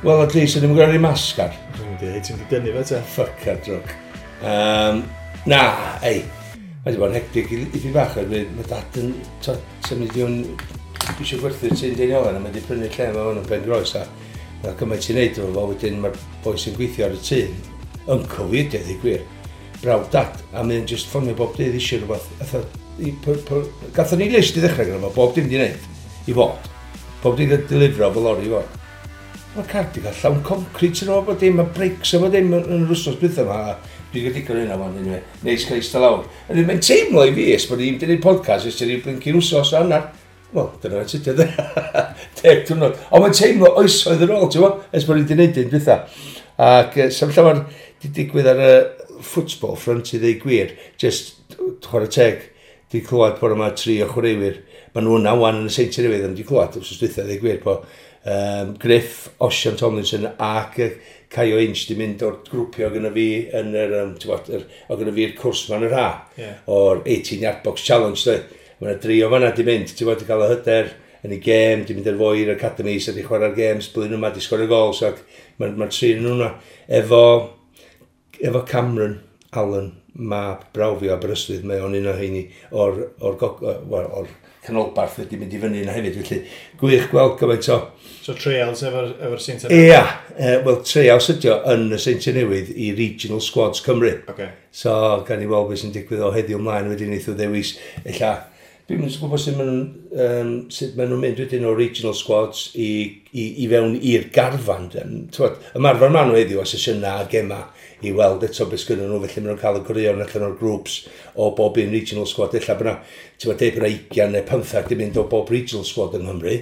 Wel, at least, ydym yn gwneud masg ar. Dwi'n mynd i, ti'n mynd i dynnu fe te. Fuck ar drwg. Na, ei, mae wedi bod yn hectic i fi bach, oherwydd mae dad yn symud i fewn, eisiau gwerthu'r tŷ'n Deiniolen, a mae wedi prynu lle mae hwn yn Ben Groes, a mae gymaint i'n neud efo fo, wedyn mae'r boi sy'n gweithio ar y tŷ, uncle fi ydi, dweud gwir, brawd dad, a mae'n just ffonio bob dydd eisiau rhywbeth. Gathon ni list i ddechrau gyda fo, bob dim di wneud, i fod. Bob dim di delifro fo lori i fod. Mae'r car di cael llawn concrete yn o, bod dim, mae brakes o bod dim yn yr wsos bydda yma. Dwi'n cael digon hynna wan, anyway. Neis cael eistedd lawr. A mae'n teimlo i fi, ers bod ni'n gwneud podcast, ers ti'n blincyn wsos a hanner. Wel, dyna fe tydio, 10 diwrnod. Ond mae'n teimlo oesoedd yn ôl, ti'n bo? Ers bod ni'n gwneud un dwytha. Ac sef llawer di digwydd ar y football front i ddeu gwir, just chwarae teg, di clywed bod yma 3 o chwaraewyr. Maen nhw yna wan yn y Seintiau Newydd, ond di clywed wrth dwytha ddeu gwir bod Griff, Osian Tomlinson ac Caio Inch di mynd o'r grwpio gyda fi yn yr, ti'n bod, o gyda fi'r cwrs ma'n yr ha, o'r 18 yard box challenge, dwi. Mae yna 3 o fanna di mynd, ti'n bod, di cael y hyder yn ei gêm, di mynd ar fwy i'r academy, so di chwarae'r games, blwyddyn yma, di sgorio gols, ac mae'r ma 3 yn hwnna. Efo Cameron Allen, mab brawd fi o Aberystwyth, mae o'n un o heini o'r canolbarth wedi mynd i fyny yna hefyd, felly gwych gweld gymaint o... So trials efo'r Seintiau Newydd? Ia, wel trials ydi o yn y Seintiau Newydd i Regional Squads Cymru. So gan i weld beth sy'n digwydd o heddiw ymlaen, wedyn wnaeth o ddewis, ella, dwi'n mynd gwybod sut maen nhw'n mynd wedyn o Regional Squads i fewn i'r garfan. T'wod, ymarfer maen nhw heddiw o sesiynau a gema i weld eto beth sgynnon nhw, felly maen nhw'n cael y gwirion allan o'r groups o bob un regional squad. Ella bod 'na, ti'n gwbod, deud bod 'na 20 neu 15 di mynd o bob regional squad yng Nghymru.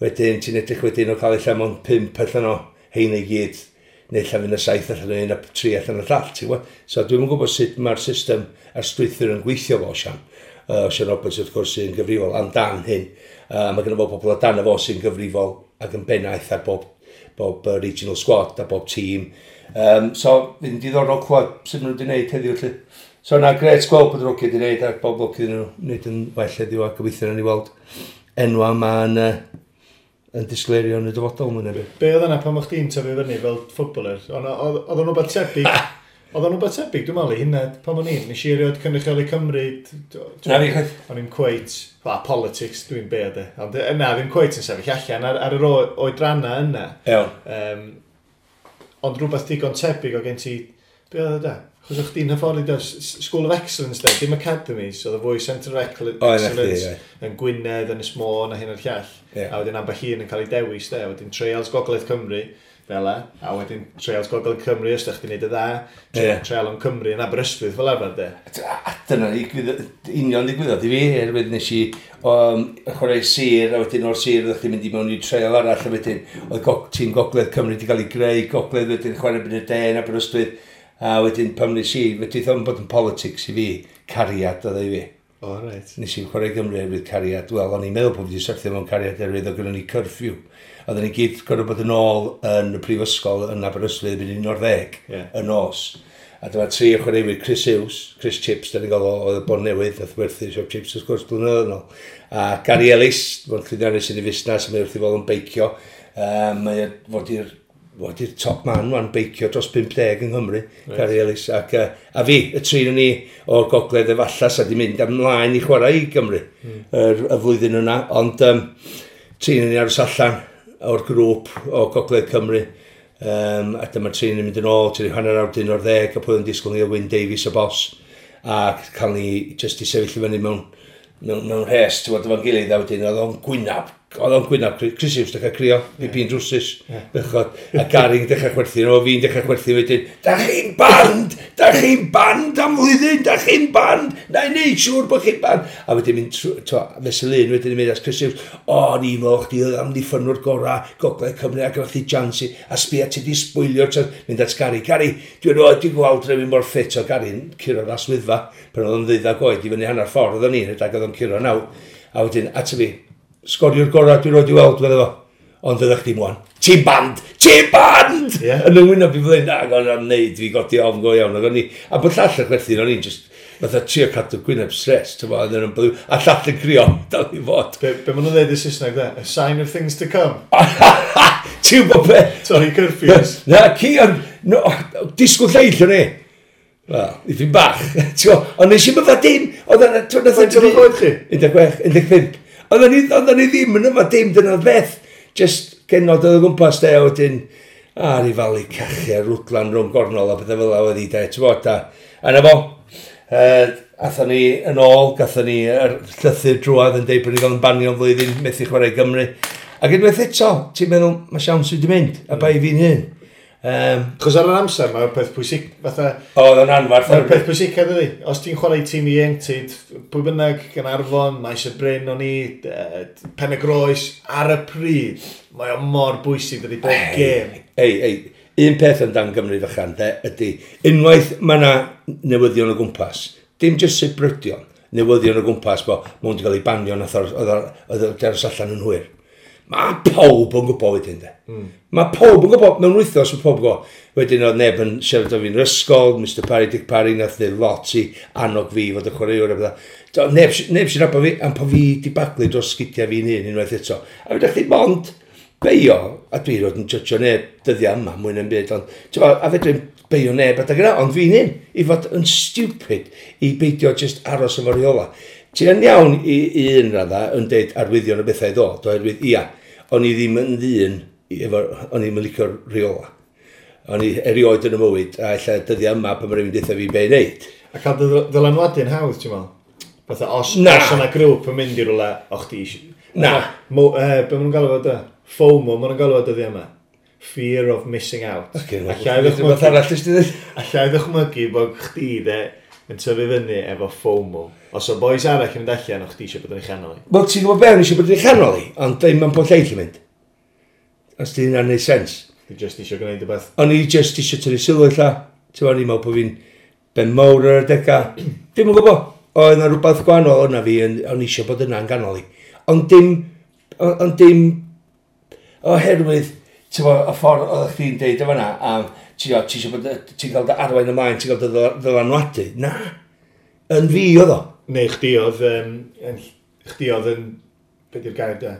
Wedyn ti'n edrych wedyn o cael ella mond 5 allan o heina i gyd, neu ella fydd 'na 7 allan o un a 3 allan o'r llall, ti'n gwbod? So dwi'm yn gwybod sut mae'r system a'r strwythur yn gweithio fo, Osian. Osian Roberts, wrth gwrs, sy'n gyfrifol amdan hyn. Mae gynno fo pobl o dan fo sy'n gyfrifol ac yn bennaeth ar bob regional squad a bob tîm. So, fydd yn diddorol clywed sut maen nhw wedi gwneud heddiw, felly. So, na, gret gweld bod yr hogia wedi gwneud a bob lwc iddyn nhw wneud yn well heddiw a gobeithio nawn ni weld enwa yma yn disgleirio yn y dyfodol, mwyn ebyd. Be oedd yna pan o'ch chdi'n tyfu fyny fel footballer? Oedd o'n rhywbeth tebyg? Oedd o'n rhywbeth tebyg, dwi'n meddwl, i hynna, pan o'n i'n, nes i erioed cynrychioli Cymru, Na fi, chwaith. O'n i'n cweit, well, politics, dwi'n be de. Ond na, ddim cweit yn sefyll allan ar yr oedranna yna. Ond rhywbeth digon tebyg o gen ti, be oedd o da? Chos o'ch chdi'n hyfforddi do, School of Excellence de, dim academies, oedd y fwy Centre of O, na chdi, Excellence ie. yn Gwynedd, yn Ynys Môn a hyn o'r llall. A wedyn ambell un yn cael ei dewis de, wedyn Trials Gogledd Cymru, fel e, a wedyn Trials Gogledd Cymru, os ydych chdi'n neud y dda, Trial yn Cymru yn Aberystwyth fel arfer de. A dyna union ddigwyddodd i fi, oherwydd nes i chwarae sir, a wedyn o'r sir oeddech chdi'n mynd i mewn i trial arall, a wedyn oedd tîm Gogledd Cymru wedi cael ei greu, Gogledd wedyn chwarae yn y de yn Aberystwyth, a wedyn pan nes i, wedyn oedd o'n bod yn politics i fi, cariad oedd e i fi. O, reit. Nes i chwarae Gymru oherwydd cariad. Wel, o'n i'n meddwl bod fi wedi syrthio mewn cariad oherwydd oedd gynnon ni curfew. Oedden ni gyd gorfod bod yn ôl yn y prifysgol yn Aberystwyth erbyn 11 y nos. A dyma 3 o chwaraewyr, Chris Hughes, Chris Chips, da ni'n gael o, oedd y Bon Newydd, nath werthu siop chips wrth gwrs blynyddoedd yn ôl. A Gary Ellis, fo'n llwyddiannus yn ei fusnes, mae wrth ei fodd yn beicio. Mae o fod i'r top man wan beicio dros 50 yng Nghymru, Gary Ellis. Ac, a fi, y 3 o'n ni o'r gogledd efallai, sa di mynd ymlaen i chwarae i Gymru y flwyddyn yna. Ond 3 o'n ni aros allan o'r grŵp o Gogledd Cymru. A dyma'r 3 yn mynd yn ôl, tri hanner awr 11, a pwy yn disgwyl ni o Wyn Davies y bos. A cael ni jyst i sefyll i fyny mewn rhes, ti'n gwbod, efo'n gilydd, a wedyn oedd o'n gwynab, oedd o'n gwynab, Chris Hughes dechrau crio, fi pi'n drwsus, bechod, a Gary'n dechrau chwerthin, o fi'n dechrau chwerthin wedyn, da chi'n band, da chi'n band am flwyddyn, da chi'n band, na i neud siŵr bod chi'n band. A wedyn mynd trw-, t'wo, fesul un wedyn yn mynd at Chris Hughes, o, ni'n meddwl chdi oedd amddiffynwr gorau Gogledd Cymru, ac oedd chdi chance i, a sbia ti di sbwylio'r chance, mynd at Gary, Gary, dwi'n rhoi, dwi'n gweld rhywun mor ffit o Gary'n curo'r aswyddfa, pan oedd o'n ddeuddag oed i fyny hanner ffordd oedd o'n un, rhedeg oedd o'n curo naw, a wedyn at fi, sgoriwr gorau dwi'n rhoi i weld, fydde fo. Ond fyddech chdi mwan. Ti'n band! Ti'n band! Yn y wyneb i flyn, ac o'n i'n neud fi godi ofn go iawn. Ac o'n i, a bod llall yn chwerthin, o'n i'n just, fatha trio cadw gwyneb stress, ti'n bod, oedd yn byw, a llall yn crio, dal i fod. Be maen nhw'n dweud yn Saesneg, de? A sign of things to come. Ti'n gwybod be? Sorry, curfews. Na, ci, ond, no, disgwyl lleill o'n i. Wel, ipyn bach. Ti'n gwybod, ond nes i'm yfad dim. Oedd yna... Faint oedd oed chi? 16, 15. Oedden ni ddim yn yfad dim, dyna'r beth. Just genod oedd o gwmpas de, a wedyn, a rifalu cachu a rwdlan rhwng gornol a pethau fel 'na oedd hi de, ti'n gwybod, a na fo. Athon ni yn ôl, gathon ni yr llythyr drwadd yn deud bod ni gael yn banio am flwyddyn, methu chwarae i Gymru. Ac unwaith eto, ti'n meddwl, mae siawns wedi mynd, a bai fi'n hun. Chos ar yr amser, mae'r peth pwysig, fatha... Oedd o'n anfarth. Mae'r peth pwysicaf ydy. Os ti'n chwarae tîm ieuenctid, pwy bynnag, Gaernarfon, Maes y Bryn o'n i, Pen y Groes, ar y pryd, mae o mor bwysig dydy bob gêm. Ei, ei, un peth amdan Gymru fychan, de, ydy, unwaith mae yna newyddion o gwmpas, dim jyst sibrydion, newyddion o gwmpas bo, mae wedi cael ei banio nath oedd o aros allan yn hwyr. Mae pawb yn gwybod wedyn, de. Mae pawb yn gwybod, mewn wythnos mae pawb yn gwybod. Wedyn oedd neb yn siarad o fi'n yr ysgol, Mr Parry, Dick Parry, nath ddweud lot i annog fi fod y chwaraewr a bydda. Neb, neb sy'n nabod fi, am po fi di baglu dros sgidiau fi'n hun unwaith eto. A fedrwch chi mond beio, a dwi roed yn judgio neb dyddiau yma, mwy na'n byd, ond ti'n gwbod, a fedrwn beio neb adeg yna, ond fi'n hun, i fod yn stupid, i beidio just aros efo'r rheola. Ti yn iawn i un radda yn deud arwyddion o bethau i ddod, oherwydd ia, o'n i ddim yn ddyn, efo, o'n i ddim yn licio'r rheola. O'n i erioed yn y mywyd, a ella dyddiau yma pan mae rhywun deutha fi be i wneud. A cael dy ddylanwadu'n hawdd, ti'n meddwl? Fatha, os, Na. os yna grŵp yn mynd i rwle, o chdi eisiau... Na. Mo, be maen nhw'n galw fo da? FOMO, maen nhw'n galw fo dyddiau yma. Fear of missing out. Ocê, Alla i rhywbeth ddychmygu, arall ys ti ddweud? alla i ddychmygu bod chdi de yn tyfu fyny efo FOMO. Os o boys arall yn mynd allan, o chdi eisiau bod yn ei chanol i. Wel, ti'n gwybod be, o'n i eisiau bod yn ei chanol i, ond ddim yn bod lleill yn mynd. Os di hynna'n neud sens. Ti just eisiau gwneud y beth. O'n i just eisiau tynnu sylw ella. Ti'n gwybod, o'n i'n meddwl bod fi'n ben mawr ar y dega. Dim yn gwybod. Oedd yna rhywbeth gwahanol yna fi, o'n i eisiau bod yna'n ganol i. Ond dim, oherwydd, ti'n gwybod, y ffordd oeddech chdi'n deud o fan'na, am, ti'n gwybod, ti eisiau bod, ti'n cael dy arwain ymlaen, ti'n cael dy ddylanwadu. Na, yn fi oedd o. Neu chdi oedd, chdi oedd yn, be di'r gair da?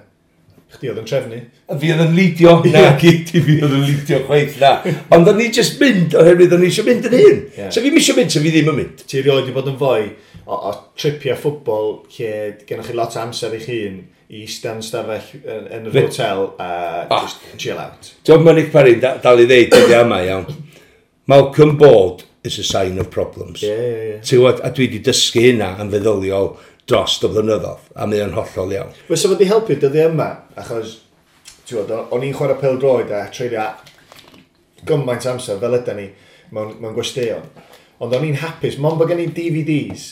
Chdi oedd yn trefnu. A fi oedd yn lidio, na, gyd i fi oedd yn lidio chweith, na. Ond o'n i just mynd, oherwydd o'n i eisiau mynd yn hun. Ie. So fi'n eisiau mynd, so fi ddim yn mynd. Ti erioed wedi bod yn fwy o tripia ffwbol lle gennych chi lot o amser i'ch hun i eistedd yn stafell yn yr hotel a just chill out. Ti'n gwybod, mae Nick Parry dal i ddeud dyddiau yma, iawn. Malcolm Board is a sign of problems. Ie, ie, ie. Ti'n gwybod, a dwi wedi dysgu hynna yn feddyliol dros y blynyddoedd, a mae o'n hollol iawn. Fysa fod i helpu dyddiau yma, achos ti'n gwybod, o'n i'n chwarae pêl-droed a treulio gymaint amser fel yda ni mewn gwesteion. Ond o'n i'n hapus, mond bod gen i DVDs,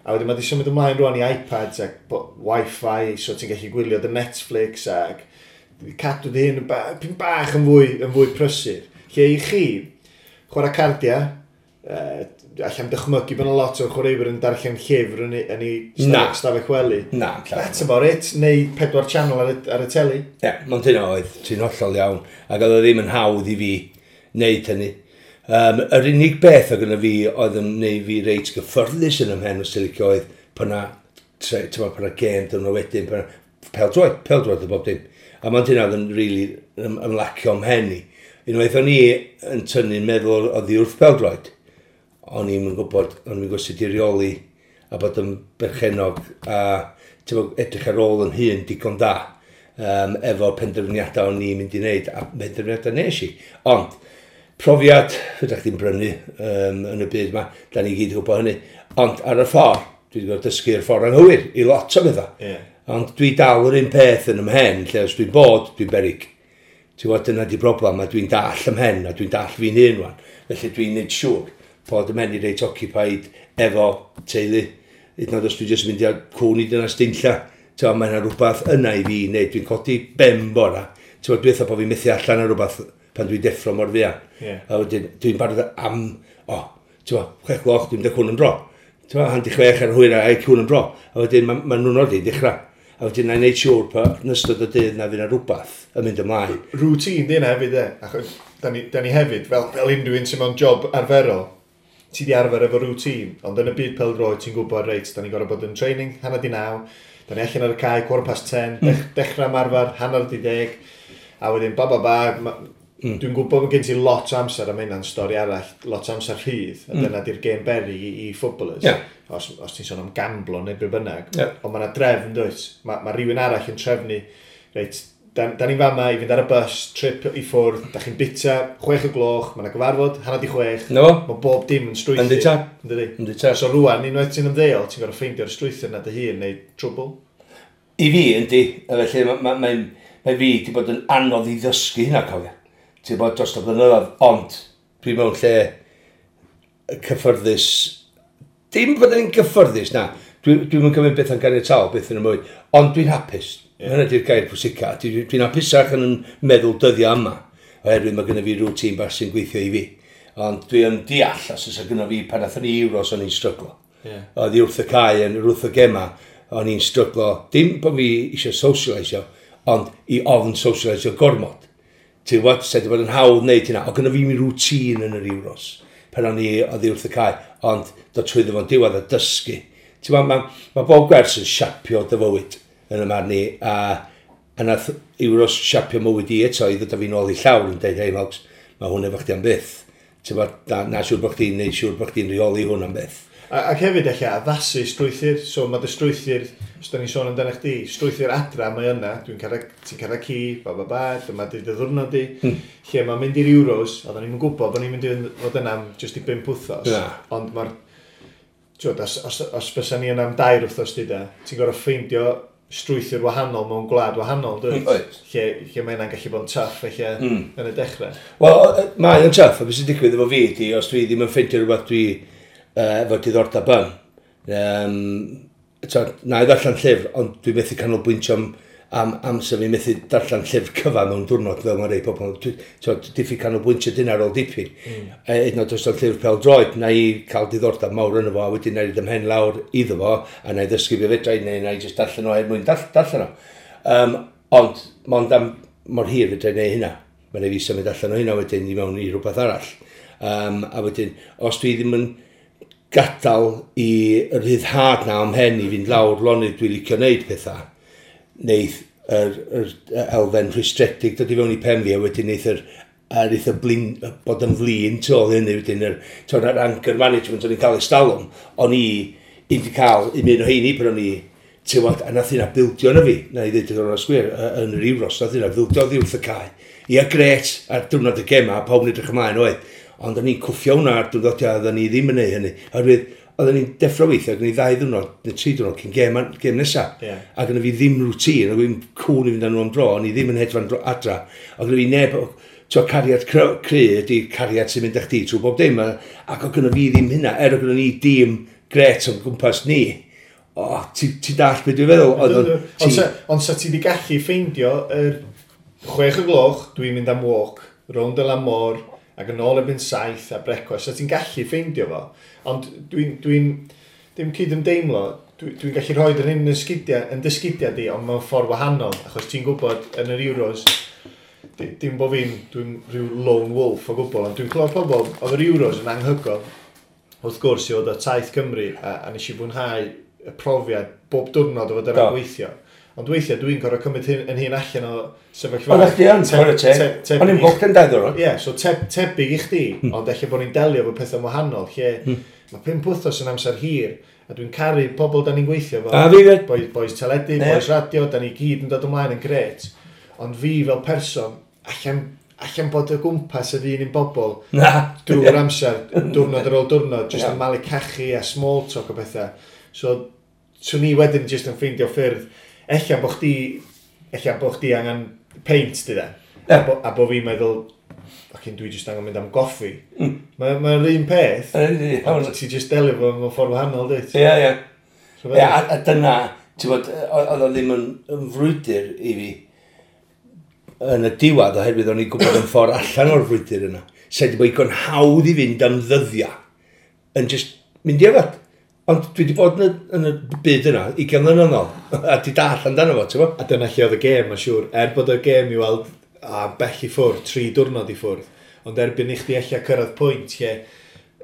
a wedyn mae wedi symud ymlaen rwan i iPads ac Wi-Fi, so ti'n gallu gwylio dy Netflix ac cadw dy hun yn pyn bach yn fwy prysur. Lle i chi, chwarae cardiau, allan dychmygu bod yna lot o chwaraewyr yn darllen llyfr yn ei Na. stafell wely. Na, llawer. That's about it. Neu pedwar channel ar y teli. Ie, yeah, hynna oedd, ti'n hollol iawn. Ac oedd o ddim yn hawdd i fi wneud hynny. Yr unig beth oedd gyda fi oedd yn neud fi reit gyffyrddus yn ymhen os ti'n licio oedd pan na, ti'n pan na gêm dyn nhw wedyn, pan na, pêl-droed, pêl-droed o bob dim. A mae'n hynna oedd yn really ymlacio ymhen i. Unwaith o'n i yn tynnu'n meddwl oddi wrth pêl-droed, o'n i'n gwybod, o'n i'n gwybod sut i reoli a bod yn berchenog a ti'n gwbod, edrych ar ôl yn hun digon da efo penderfyniadau o'n i'n mynd i wneud a penderfyniadau nes i. Ond, profiad, fydda chdi'n brynu yn y byd yma, da ni gyd yn gwybod hynny. Ond ar y ffordd, dwi wedi gwybod dysgu'r ffordd anghywir i lot o bethau. Ond dwi dal yr un peth yn ymhen, lle os dwi'n bod, dwi'n berig. Ti'n gwybod, dyna di broblem, a dwi'n dall ymhen, a dwi'n dall fi'n hun wan. Felly dwi'n neud siŵr bod ymhen i reit occupied efo teulu. Hyd yn oed os dwi'n jyst mynd i'r cwn i dyna steinlla. Ti'n gwybod, mae yna rhywbeth yna i fi wneud. Dwi'n codi ben bora. Ti'n gwybod, dwi'n meddwl bod fi'n methu allan ar rhywbeth pan dwi'n deffro mor fuan. A wedyn, dwi'n barod am, o, ti'n gwybod, 6 gloch, dwi'n mynd â cwn yn dro. Ti'n gwybod, 5:30 ar hwyr a cwn yn dro. A wedyn, ma nhw'n ordi dechrau. A wedyn, na i wneud siŵr pa yn ystod y dydd na fydd yna rhywbeth yn mynd ymlaen. Routine di hynna hefyd, e. Achos da ni hefyd, fel unrhyw un sy'n mewn job arferol, ti di arfer efo routine, ond yn y byd pêl-droed ti'n gwybod, reit, da ni'n gorfod bod yn training, 8:30, da ni allan ar y cae, 10:15, dechrau ymarfer, 9:30. A wedyn, ba ba ba, dwi'n gwybod bod gen ti lot o amser am hynna'n stori arall, lot o amser rhydd, a dyna di'r game berry i footballers. Yeah. Os ti'n sôn am gamblo neu be bynnag. Yeah. Ond mae yna drefn, dwyt? Mae rhywun arall yn trefnu, reit, da ni'n fama i fynd ar y bus, trip i ffwrdd, da chi'n bita, 6 o'gloch, mae yna gyfarfod, 5:30. No. Mae bob dim yn strwythur. Yndi tad. Yndi. Yndi tad. So rwan, unwaith ti'n ymddeol, ti'n gorfod ffeindio'r strwythur na dy hun neu trwbl. I fi, yndi. A felly, mae fi wedi bod yn anodd i ddysgu hynna, cofio. Ti'n bod dros y blynyddoedd, ond dwi mewn lle cyffyrddus. Dim bod yn gyffyrddus, na. Dwi'n cymryd beth yn ganiataol, beth yn y mwy. Ond dwi'n hapus. Yeah. Hynny di'r gair pwysica. Dwi'n hapusach yn meddwl dyddiau yma. Oherwydd mae gennym fi routine bach sy'n gweithio i fi. Ond dwi yn deall, os oes gynno fi pan athyn ni Euros, o'n i'n stryglo. Oedd i wrth y cae, yn wrth y gema, o'n i'n stryglo. Dim bod fi eisiau socialisio, ond i ofn socialisio gormod. Ti'n gwybod, sa'i wedi bod yn hawdd wneud hynna. O gynno fi mi routine yn yr Euros pan o'n i oddi wrth y cae, ond dod trwyddo fo'n diwedd a dysgu. Ti'n gwybod, ma bob gwers yn siapio dy fywyd yn y marn i, a nath Euros siapio mywyd i eto i ddod â fi nôl i llawr yn dweud, "Hei Mogs, mae hwn efo chdi am byth. Ti'n gwybod, na siŵr bod chdi'n neud siŵr bod chdi'n rheoli hwn am byth." Ac hefyd eich addasu strwythur, so mae dy strwythur, os da ni'n sôn amdano chdi, strwythur adra mae yna, ti'n cael ci, ba ba ba, dyma di dy ddwrnod di, lle mae'n mynd i'r Euros, oedden ni'n gwybod bod ni'n mynd i fod yna am jyst i 5 wythnos, Na. ond mae'r, ti'n os fysa ni yna am 2 wythnos di da, ti'n gorfod ffeindio strwythur wahanol mewn gwlad wahanol, dwyt? Oes. Lle mae hynna'n gallu bod yn tough, eich yn y dechrau. Wel, mae o'n tough, a beth sy'n digwydd efo fi ydi, os dwi ddim yn ffeindio rhywbeth dwi efo diddordeb yn, so, na i ddarllen llyfr, ond dwi methu canolbwyntio am amser fi methu darllen llyfr cyfan mewn diwrnod fel mae rei pobl. So, diffyg canolbwyntio dyna ar ôl dipyn. Hyd yn oed os o'n llyfr pel droed, na i cael diddordeb mawr yno fo, a wedyn na i ymhen lawr iddo fo, a na i ddysgu be fedra i, neu na i jyst darllen o er mwyn darllen o. Ond, mond am mor hir fedra i neud hynna. Mae'n rhaid fi symud allan o hynna wedyn i mewn i rhywbeth arall. A wedyn, os dwi ddim yn gadael i yr rhyddhad na o'm mhen i fynd lawr lonydd dwi'n licio wneud pethau, neith yr elfen rhwystredig dod i fewn i pen fi, a wedyn neith yr a neith y blin, bod yn flin tu ôl hynny wedyn yr anger management o'n i'n cael ers talwm, o'n i wedi cael un o heini pan o'n i, ti'n gwbod, a nath hynna bildio yna fi, na i ddweud yn onest gwir, yn yr Euros, nath hynna bildio oddi wrth y cae. Ia, gret, ar diwrnod y gema, pawb yn edrych ymlaen oedd, ond o'n i'n cwffio hwnna ar diwrnodiau, oedden ni ddim yn neud hynny. Oherwydd, oedden ni'n deffro weithio, ac ni 2 ddiwrnod, neu 3 diwrnod cyn gêm nesa. A gynna fi ddim routine, oedd fi'n cwn i fynd â nhw am dro, o'n i ddim yn hedfan adra. Oedd gynna fi neb, ti'n cariad cry ydy cariad sy'n mynd â chdi trwy bob dim, ac oedd gynna fi ddim hynna, er oedd gynna ni dîm gret o'n gwmpas ni. O, ti dall beth dwi'n feddwl? Oedd o'n- Ond sa ti di gallu ffeindio yr 6 o'gloch, dwi'n mynd am walk, rownd y lan môr, ac yn ôl erbyn 7 a brecwast, sa ti'n gallu ffeindio fo. Ond dwi'n dim cyd-ymdeimlo, dwi gallu rhoi yr hyn yn dy sgidiau di, ond mewn ffordd wahanol, achos ti'n gwybod yn yr Euros, dim bod fi'n, dwi'n rhyw lone wolf o gwbl, ond dwi'n clywed pobl, oedd yr Euros yn anhygoel, wrth gwrs i fod o taith Cymru, a nes i fwynhau y profiad bob diwrnod o fod yna'n gweithio. Ond weithiau dwi'n gorfod cymryd hyn, yn hun allan o sefyllfa. Oeddech chdi yn, chwarae teg. O'n i'n booked yn 2 ddiwrnod. Ie, yeah, so tebyg i chdi, ond ella bod ni'n delio efo pethau wahanol, lle mae 5 wythnos yn amser hir, a dwi'n caru pobl da ni'n gweithio efo. A fi fyd. Boys teledu, boys radio, da ni gyd yn dod ymlaen yn gret. Ond fi fel person, allan bod o gwmpas yr un bobl Na. drwy'r amser, diwrnod ar ôl diwrnod, jyst yn malu cachu a small talk o bethau. So, swn i wedyn jyst yn ffeindio ffyrdd, ella bo chdi angen peint, di da. A bo fi'n meddwl, "Fucking, dwi jyst angen mynd am goffi." Mae'r un peth, ond ti jyst delio fo mewn ffordd wahanol, dwyt? Ie. So Ie, a dyna, ti'n bod, oedd o ddim yn frwydr i fi yn y diwedd, oherwydd o'n i'n gwybod yn ffordd allan o'r frwydr yna. Sa'i wedi bod igon hawdd i fynd am ddyddiau yn just mynd i yfed. Ond dwi wedi bod yn y byd yna, 20 mlynedd yn ôl, a di dall amdano fo, ti'n bod? A dyna lle oedd y gêm, mae'n siŵr. Er bod y gêm i weld a bell i ffwrdd, 3 diwrnod i ffwrdd. Ond erbyn i chdi ella cyrraedd pwynt lle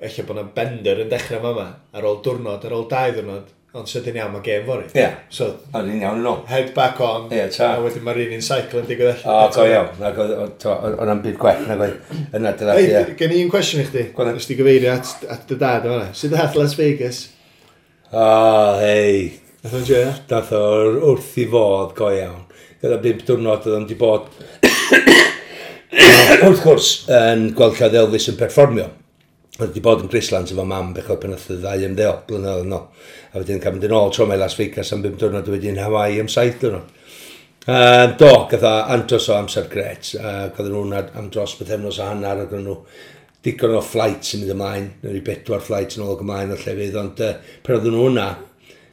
ella bod yna bender yn dechrau fama, ar ôl diwrnod, ar ôl 2 ddiwrnod, Ond sydyn iawn, mae gêm fory. Ie. Yeah. So, o'n i'n iawn yn ôl. Head back on, yeah, ta. A wedyn mae'r un un cycle yn digwydd allan. O, go iawn. Nag oedd o'n byd gwell, nag oedd yna dyna. Ei, gen i un cwestiwn i chdi. Nes ti gyfeirio at dy dad yma. Sut dath Las Vegas? O, hei. Nath o'n joio? Nath o wrth i fodd, go iawn. Gyda 5 diwrnod oedd o'n di bod wrth gwrs yn gweld lle oedd Elvis yn perfformio. Oedd wedi bod yn Graceland efo mam bechod pan oedd y ddau ymddeol blynyddoedd yn ôl. A wedyn cael mynd yn ôl tro mae Las Vegas am 5 diwrnod a wedyn Hawaii am 7 diwrnod. Do, gath o andros o amser gret. Gath nhw'n am dros bythefnos a hanner ac nhw digon o flights yn mynd ymlaen. Neu 4 flights yn ôl ac ymlaen o llefydd, ond pan oedden nhw hwnna,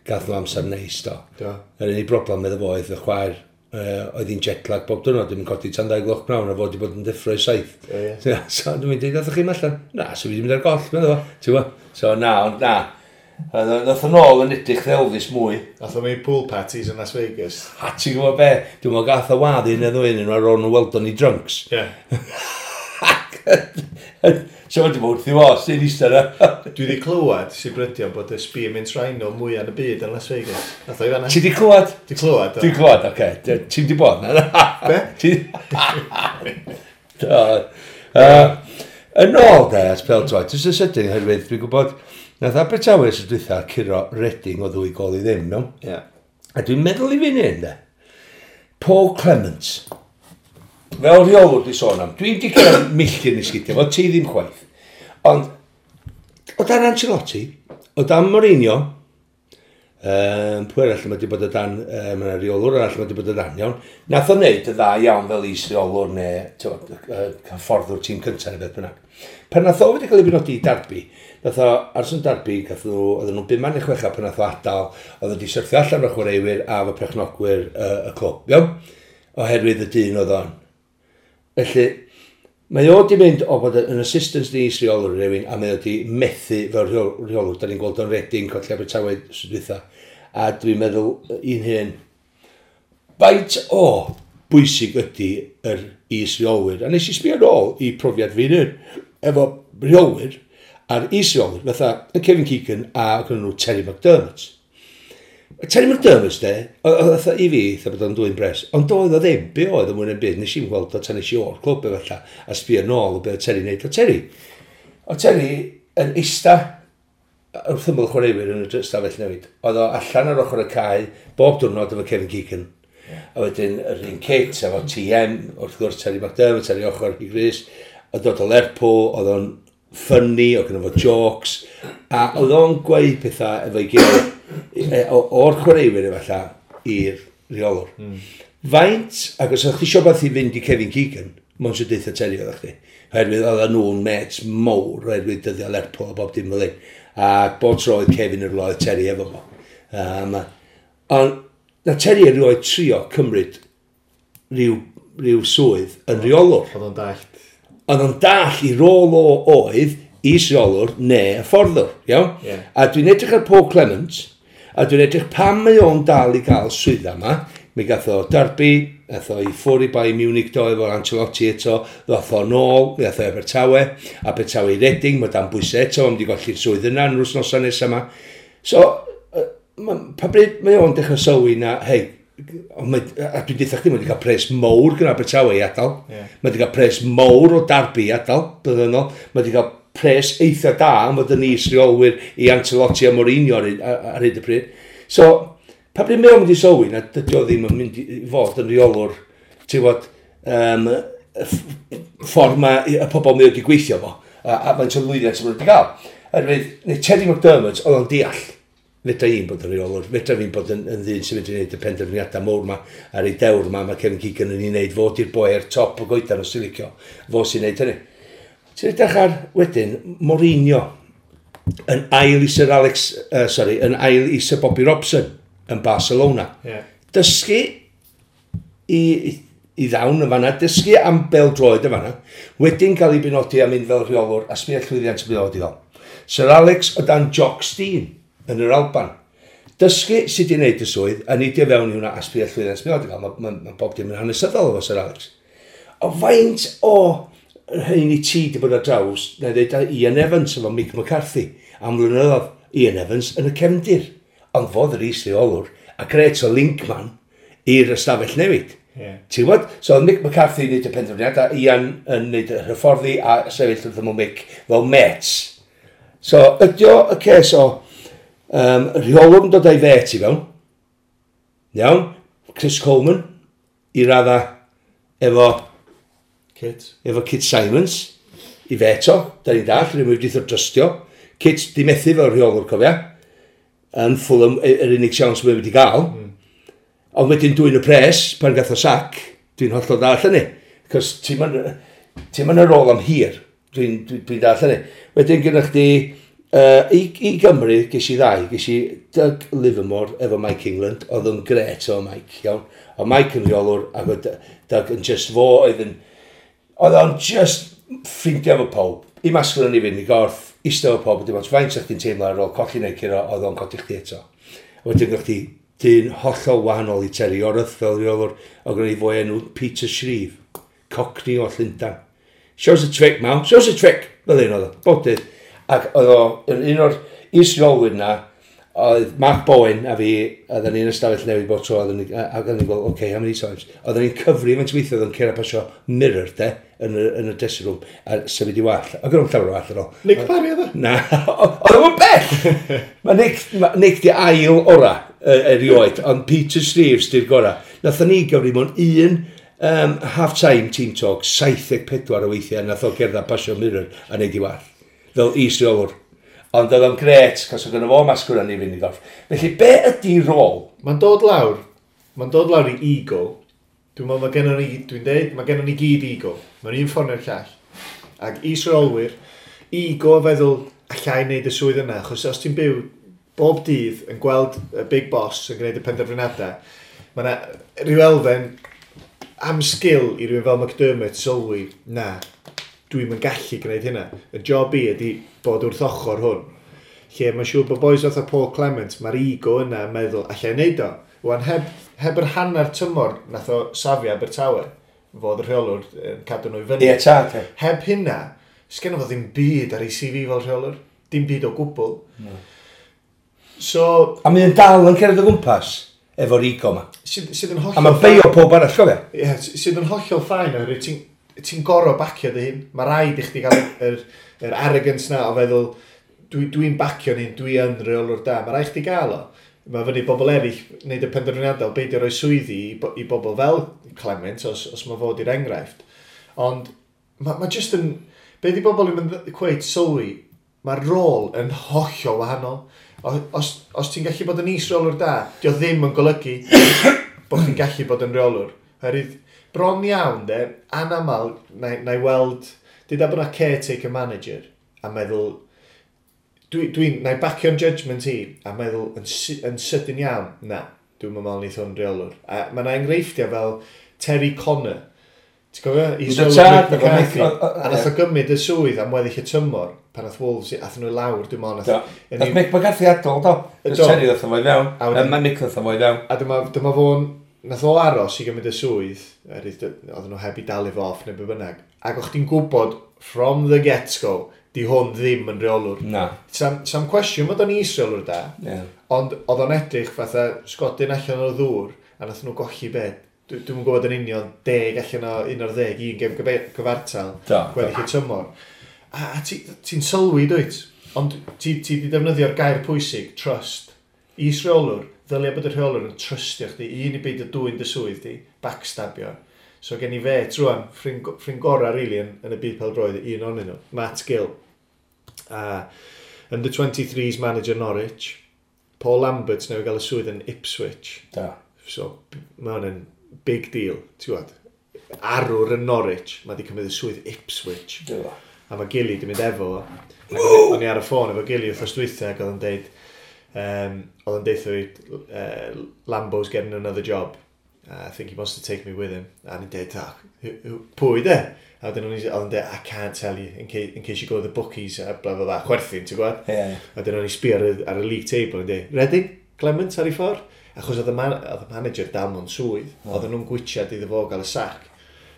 gath nhw amser neis, do. Do. Yr unig broblem iddo fo oedd y chwaer oedd hi'n jetlag bob diwrnod, ddim yn codi tan 2 gloch pnawn a fod wedi bod yn deffro i 7. Ie, ie. So dwi'n mynd, ddathoch chi'n allan? Na, so fi wedi mynd ar goll, meddwl fo. Ti'n gwbod? So na, ond na. Nath o'n ôl yn edrych Elvis mwy. Nath o'n mynd pool parties yn Las Vegas. A ti'n gwybod be? Dwi'n meddwl gath o wadd un neu ddwy yn ar ôl nhw weld o'n i drunks. Ie. So wedi bod wrth i fo, sy'n eistedd yna. Dwi wedi clywed sy'n brydio bod y Spearmint Rhino mwyaf yn y byd yn Las Vegas. Nath o i fan'na. Ti di clywed? Di clywed, do. Di clywed, oce. Ti'n di bod na? Be? Do. Yn ôl de, at pêl-droed, jyst yn sydyn, oherwydd dwi'n gwybod, nath Abertawe sy'n dwytha curo Reading o 2 gôl i ddim, iawn? Ie. A dwi'n meddwl i fi'n hyn, de, Paul Clement, fel rheolwr di sôn am, dwi'n di cyrraedd milltir i sgidiau, fo ti ddim chwaith. Ond, o dan Ancelotti, o dan Mourinho, pwy arall mae wedi bod o dan, mae yna reolwr arall mae wedi bod o dan, iawn. Nath o wneud y dda iawn fel is-reolwr neu hyfforddwr tîm cyntaf neu beth bynnag. Pan nath o wedi cael ei benodi i Derby, nath o aros yn Derby, gath nhw, oedden nhw'n 5 neu 6 pan nath o adael, oedd wedi syrthio allan o'r chwaraewyr a fo perchnogwyr y clwb, iawn? Oherwydd y dyn oedd o'n. Felly, mae o wedi mynd o bod yn assistant i is-reolwr rhywun, a mae o wedi methu fel rheolwr. Da ni'n gweld o'n Reading, colli Abertawe tro dwytha. A dwi'n meddwl un hyn, faint o bwysig ydy yr is-reolwyr. A nes i sbio nôl i profiad fi'n hyn, efo rheolwyr a'r is-reolwyr, fatha y Kevin Keegan a gyda nhw Terry McDermott. Terry McDermott, de, oedd i fi, eitha bod o'n dwy'n bres, ond doedd o ddim, be oedd o mwy na'n byd, nes i'n gweld o tan nes i o'r clwb efallai, a sbio nôl o be oedd Terry wneud. O Terry yn eista wrth ymyl chwaraewyr yn y stafell newid. Oedd o allan ar ochr y cae, bob diwrnod efo Kevin Keegan. Yeah. A wedyn yr un kit efo TM, wrth gwrs Terry McDermott ar ei ochr i Gris, oedd dod o Lerpwl, oedd o'n funny, oedd gynno fo jokes, a oedd o'n gweud pethau efo'i gilydd o'r chwaraewyr efallai i'r rheolwr. Faint, ac os o'ch chi isio beth i fynd i Kevin Keegan, mond sy'n deutha Terry oeddech chdi. Oherwydd oedden nhw'n mates mowr, oherwydd dyddiau Lerpwl a bob dim fel hyn. A bob tro oedd Kevin yn rhywle, oedd Terry efo fo. Ond na Terry erioed trio cymryd rhyw swydd yn rheolwr. Oedd o'n dallt. Oedd o'n dall i rôl o oedd is-reolwr neu hyfforddwr, iawn? Yeah. A dwi'n edrych ar Paul Clement, a dwi'n edrych pam mae o'n dal i gael swydd yma. Mi gath o Derby, gath o i ffwrdd i Bayern Munich do efo Ancelotti eto, ddoth o nôl, mi gath o Abertawe, Abertawe i Reading, mae dan bwysau eto, mae'n wedi golli'r swydd yna yn yr wythnosau nesaf yma. So, pa bryd mae o'n dechrau sylwi na, hei, a dwi'n deutha chdi, mae wedi cael pres mowr gyda Abertawe i adael. Yeah. Mae wedi cael pres mowr o Derby i adael, blynyddoedd. Mae wedi cael pres eitha da am fod yn is-reolwyr i Ancelotti a Mourinho ar hyd y pryd. So, pa bryd mae o'n mynd i sylwi na dydy o ddim yn mynd i fod yn rheolwr, ti'n gwbod, ffordd mae y pobl mae wedi gweithio fo, a faint o lwyddiant maen nhw wedi gael. Oherwydd, neu Terry McDermott, oedd o'n deall, fedra i'n bod yn rheolwr, fedra fi'n bod yn ddyn sy'n mynd i wneud y penderfyniadau mowr ma, ar ei dewr ma, mae Kevin Keegan yn ei wneud, fo di'r boi ar top y goedan os ti'n licio, fo sy'n wneud hynny. Ti'n edrych ar wedyn Mourinho yn ail i Sir Alex, yn ail i Sir Bobby Robson yn Barcelona. Yeah. Dysgu i ddawn yn fanna, dysgu am bêl-droed yn fanna, wedyn cael ei benodi am mynd fel rheolwr a sbio llwyddiant y byd i. Sir Alex o dan Jock Stein yn yr Alban. Dysgu sut i wneud y swydd, a neidio fewn i hwnna a sbio llwyddiant y byd i. Mae bob dim yn hanesyddol efo Sir Alex. O faint o rhain i ti di bod ar draws, na dweud Ian Evans efo Mick McCarthy, am flynyddoedd Ian Evans yn y cefndir. Ond fodd yr is-reolwr, a gret o linkman i'r ystafell newid. Yeah. Ti'n gwybod? So oedd Mick McCarthy yn neud y penderfyniad, a Ian yn neud y hyfforddi a sefyll wrth ymyl Mick fel mates. So ydy o y ces o rheolwr yn dod â'i fet i fewn. Iawn? Chris Coleman i radda efo Kit. Efo Kit Simons i fet o, da ni'n dall, rydyn wedi drystio. Kit di methu fel rheolwr, cofia. Yn Fulham, yr unig siawns mae wedi gael. Ond wedyn dwyn y pres, pan gath o sac, dwi'n hollol dall hynny. Cos ti'n mynd ar ôl am hir, dwi'n dwi, dwi dall hynny. Wedyn gyda chdi, i Gymru, ges i ddau, ges i Doug Livermore efo Mike England, oedd yn gret o Mike, iawn. Oedd Mike yn rheolwr, ac oedd Doug yn just fo, oedd yn, oedd o'n just ffrindiau efo pawb. I masgol yn i fynd i gorff, eistedd efo pawb, dim ots faint o'ch chdi'n teimlo ar ôl colli neu curo, oedd o'n codi chdi eto. Wedyn gyda chdi dyn hollol wahanol i Terry Yorath fel rheolwr, oedd gen i fwy enw Peter Shreeve, Cockney o Llundain. Shows a trick, man, shows a trick, fel un oedd o, bob dydd. Ac oedd o, yn un o'r is-reolwyr na, oedd Mark Bowen a fi, oedden ni'n ystafell newid bob tro, oedden ni, ac oedden ni'n gweld, okay, how many times? Oedden ni'n cyfri faint weithio oedd yn cyrra pasio mirror, de, yn y dressing room, a symud i wall. Ac o'n llawer o wall ar ôl. Nick Parry oedd o? Na, oedd o'n bell! Mae Nick, ma Nick di ail ora erioed, ond Peter Shreeves di'r gora. Nathon ni gyfri mewn un half-time team talk, 74 o weithiau, nath o gerdded pasio mirror a neud i wall. Fel is-reolwr. Ond oedd o'n gret, cos oedd gynno fo masgwr i fynd i gorff. Felly, be ydy rôl? Mae'n dod lawr. Mae'n dod lawr i ego. Dwi'n meddwl mae gennon ni, dwi'n deud, mae gennon ni gyd ego. Mae'n un ffordd neu'r llall. Ac is-reolwyr, ego feddwl allai wneud y swydd yna, achos os ti'n byw bob dydd yn gweld y big boss yn gwneud y penderfyniadau, mae yna rhyw elfen am sgil i rywun fel McDermott sylwi, na, dwi'm yn gallu gwneud hynna. Y job i ydy bod wrth ochr hwn. Lle mae'n siŵr bod boys fatha Paul Clement, mae'r ego yna yn meddwl, allai wneud o. Wan, heb yr hanner tymor nath o safio Abertawe, fod y rheolwr yn cadw nhw i fyny. Ie, tad. Heb hynna, sgenno fo ddim byd ar ei CV fel rheolwr. Dim byd o gwbl. No. So... A mae'n dal yn cerdded o gwmpas efo'r ego ma. Sydd yn hollol... A mae'n beio pob arall, cofio? Ie, sydd yn hollol ffain oherwydd ti'n gorfod bacio dy hun. Mae rhaid i chdi gael yr arrogance na o feddwl, dwi'n bacio'n hun, dwi yn rheolwr da. Mae rhaid chdi gael o. Mae fyny bobl eraill wneud y penderfyniadau, beidio rhoi swyddi i bobl fel Clement, os mae fod i'r enghraifft. Ond mae just yn... Be di bobl yn cweith sylwi, mae'r rôl yn hollol wahanol. Os ti'n gallu bod yn is-reolwr da, dio ddim yn golygu bod chdi'n gallu bod yn reolwr. Oherwydd, bron iawn, de, anamal, na i weld, dyda bod na caretaker manager, a meddwl, na i bacio'n judgment i, a meddwl yn sydyn iawn, na, dwi'n meddwl neith hwn reolwr. A mae yna enghreifftiau fel Terry Connor, ti'n cofio? Is-reolwr Mick McCarthy. A nath o gymryd y swydd am weddill y tymor, pan nath Wolves, athyn nhw i lawr, dwi'n meddwl. Nath Mick McCarthy adael, do. Terry ddoth o fo i fewn. Mae Mick ddoth o fo i fewn. A dyma fo'n, nath o aros i gymryd y swydd, oedden nhw heb i dalu fo off neu be bynnag. Ac o'ch ti'n gwybod, from the get-go, di hwn ddim yn reolwr. Na. Sam cwestiwn bod o'n is-reolwr da, yeah. Ond oedd o'n edrych fatha sgodyn allan o'r ddŵr, a nath nhw golli be. Dwi'm yn gwybod yn union 10 allan o 11, un gem gyfartal, gweddill y tymor. A ti'n sylwi, dwyt? Ond ti di defnyddio'r gair pwysig, trust. Is-reolwr, ddylia bod y rheolwr yn trystio chdi, un i beidio dwyn dy swydd di, backstabio. So gen i fe, trwan, ffrind gorau, really, yn y byd pêl-droed, un ohonyn nhw, Matt Gill. Under 23s manager Norwich, Paul Lambert newydd gael y swydd yn Ipswich. Da. So, mae hwn yn big deal, ti'n gwybod. Arwr yn Norwich, mae di cymryd y swydd Ipswich. Da. A mae Gilly di mynd efo fo. O'n i ar y ffôn efo Gilly wrthnos dwytha ac oedd o'n deud, oedd o'n deud fi, Lambo's getting another job. I think he wants to take me with him. A ni'n deud, pwy de? A wedyn oedd o'n deud, I can't tell you, in case you go to the bookies, a bla bla bla, chwerthin, ti'n gwybod? Yeah. A wedyn o'n i sbio ar y league table, yn deud, Reading, Clement ar ei ffordd? Achos oedd y manager dal mewn swydd, oedden nhw'n gwitsiad iddo fo gael y sac.